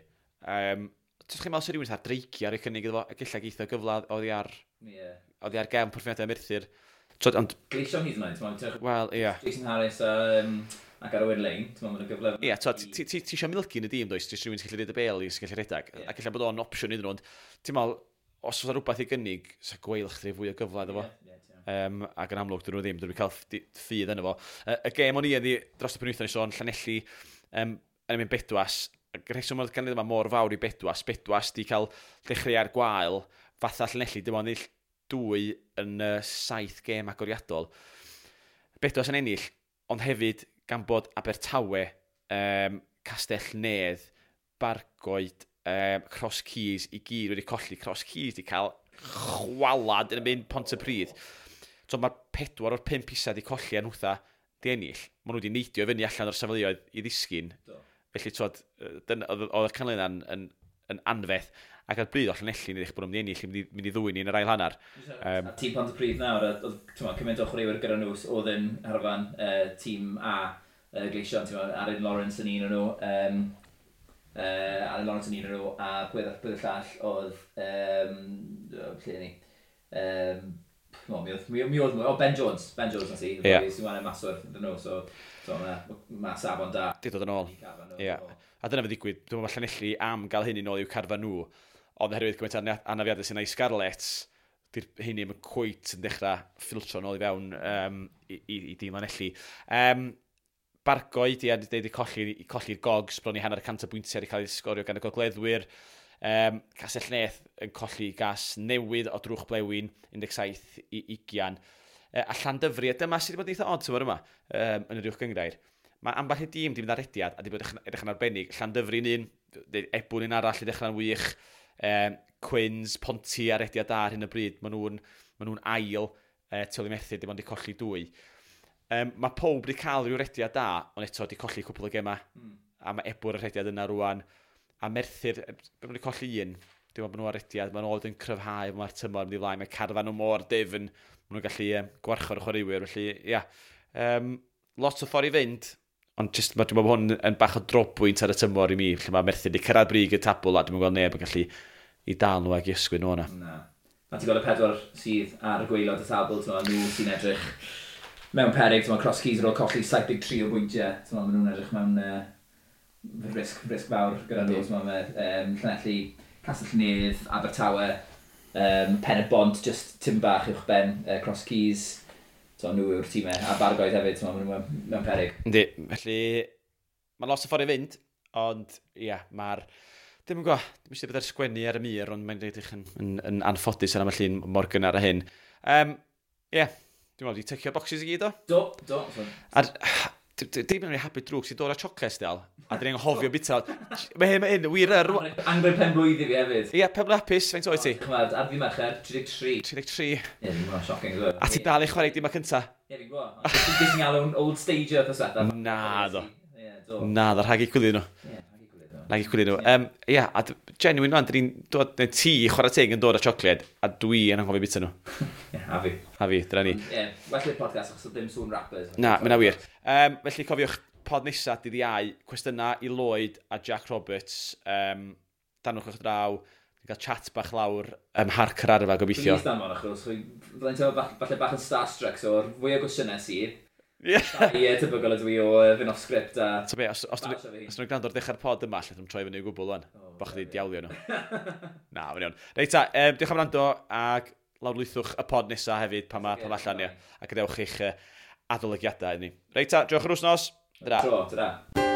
Ti'n chi'n meddwl sy'n rhywun ar dreicio ar ei cynnig iddo fo, ac ella geitho gyfle oddi ar, oddi ar gefn perfformiadau Merthyr. Ond Gleision hyd yn oed, wel, ie. Jason Harris ac Owen Lane, ti'n meddwl mae'n gyfle. Ie, ti eisiau milgi yn y dîm, does? Ti eisiau rhywun sy'n gallu rhedeg y bêl, sy'n gallu rhedeg. Ac ella bod o'n opsiwn iddyn nhw, ond ti'n meddwl, os oes rhywbeth i gynnig, sa Gweilch rhoi fwy o gyfle iddo fo. Ac yn amlwg, dyn nhw ddim, dyn nhw'n cael ffydd yno fo. Y gêm o'n i ydi dros y penwythnos i sôn, Llanelli, yn mynd Bedwas. Y rheswm oedd ganlyniad yma mor fawr i Bedwas, Bedwas di cael dechreuad gwael, fatha Llanelli, dim ond ennill 2 yn 7 gêm agoriadol. Bedwas yn ennill, ond hefyd gan bod Abertawe, Castell Nedd, Bargoed, Cross Keys i gyd wedi colli. Cross Keys di cael chwalad yn y mynd Pontypridd. So mae'r 4 o'r 5 isa di colli a nhwtha di ennill. Maen nhw wedi neidio fyny allan o'r safleoedd i ddisgyn. Felly, oedd y canlyniad yn anferth. Ac ar bryd o Llanelli, yn edrych bod nhw'n mynd i ennill, mynd i ddwyn ni yn yr ail hanner. A tîm Pontypridd nawr, oedd cymaint o chwaraewyr gyda nhw oedd yn harfan tîm A, Gleision, Aaron Lawrence yn un o'n nhw, Aaron Lawrence yn un o'n nhw, a pwy y llall oedd, lle ni, mi oedd mwy, o Ben Jones nas i, sy'n wahanol maswr iddyn nhw, so mae safon da. Di dod yn ôl, ie. A dyna fe ddigwydd, dwi'n meddwl Llanelli am gael hyn i nôl i'w carfan nhw, ond oherwydd gymaint anafiadau sy'n ei Scarlets, di'r hynny ddim yn cweit yn dechrau ffiltro nôl i fewn i dîm Llanelli. Bargoed, ie, wedi colli'r Gogs, bron i 150 o bwyntiau wedi cael ei sgorio gan y Gogleddwyr. Castell Nedd yn colli gas newydd o drwch blewyn, 17 i 20. A Llandyfri, a dyma sydd wedi bod yn eitha odd tymor yma, yn yr uwch gynghrair. Mae ambell i dîm di mynd ar rediad a di bod edrych yn arbennig. Llandyfri'n un, Ebwn un arall i ddechrau'n wych, Quins, Ponty ar rediad da ar hyn o bryd, maen nhw'n ail, tu ôl i Merthyr, dim ond di colli 2. Mae pob wedi cael rhyw rediad da, ond eto wedi colli cwpl o gemau. A mae Ebwr y rediad yna rwan. A Merthyr, maen nhw wedi colli un, dim ond bod nhw ar rediad, maen nhw yn cryfhau, mae'r tymor yn mynd i flaen, mae carfan nhw mor dyfn, maen nhw'n gallu gwarchod y chwaraewyr, felly, ia. Lot o ffordd i fynd, ond just, dwi'n meddwl bod hwn yn bach o drobwynt ar y tymor i mi, lle mae Merthyr wedi cyrraedd brig y tabl, a dwi'n gweld neb yn gallu i dal nhw ag i ysgwyd nhw yna. Na. A ti'n gweld y 4 sydd ar y gwaelod y tabl, ti'n meddwl, nhw sy'n edrych mewn peryg, ti'n meddwl, Cross Keys ar ôl colli 73 o bwyntiau, ti'n meddwl, maen nhw'n edrych mewn risg fawr gyda nhw, ti'n meddwl, Llanelli, Castell Nedd, Abertawe, Pen y Bont, just tim bach uwch ben, Cross Keys, so nhw yw'r tîmau, a Bargoed hefyd, ti'n meddwl, maen nhw mewn peryg. Yndi, felly, mae'n lot o ffordd i fynd, ond, ia, mae'r... Dim yn gwybod, dim eisiau bod ar sgwennu ar y mur, ond mae'n edrych yn anffodus ar ambell un mor gynnar a hyn. Ie, dwi'n meddwl, di tycio boxes i gyd o? Do. A dim yn happy drwg sy'n dod â chocolate dal, a dyn ni'n anghofio bita. Mae hyn, wir yr... Angre pen blwydd i fi hefyd. Ie, pen blwydd hapus, faint oed ti? Chymod, ar fi Mercher, 33. 33. Ie, dwi'n gwybod, shocking. A ti dal i chwarae dim a cynta? Ie, fi'n gwybod. Dwi'n sy'n galw'n old stager wrth yswetha. Na, do. Na, do, rhag i chwilio nhw. Ie. Nag i chwilio nhw. Ie, a genuine rwan, dyn ni'n dod, neu ti chwarae teg yn dod â siocled, a dwi yn anghofio bita nhw. Ie, a fi. A fi, dyna ni. Ie, well i'r podcast achos ddim sŵn rappers. Na, mae'n wir. Felly cofiwch, pod nesa, dydd Iau, cwestiynau i Lloyd a Jack Roberts, danwch o'ch draw, ni'n cael chat bach lawr ym Mharc yr Arfa, gobeithio. Please danfon, achos fyddai'n teimlo falle bach yn starstruck, so o'r fwy o gwestiynau sydd, Ie. Ie, tebygol ydw i o fynd off script a Ta be, os basio fi. os nhw'n gwrando ar ddechrau'r pod yma, allan nhw'n troi fyny o gwbl wan. O, Bo chdi ie. diawlio nhw. Na, mae'n iawn. Reit ta, diolch am wrando ac lawrlwythwch y pod nesa hefyd pan mae allan, ia. A gadewch eich adolygiadau i ni. Reit ta, diolch yr wsnos. Dra. Tro, ta.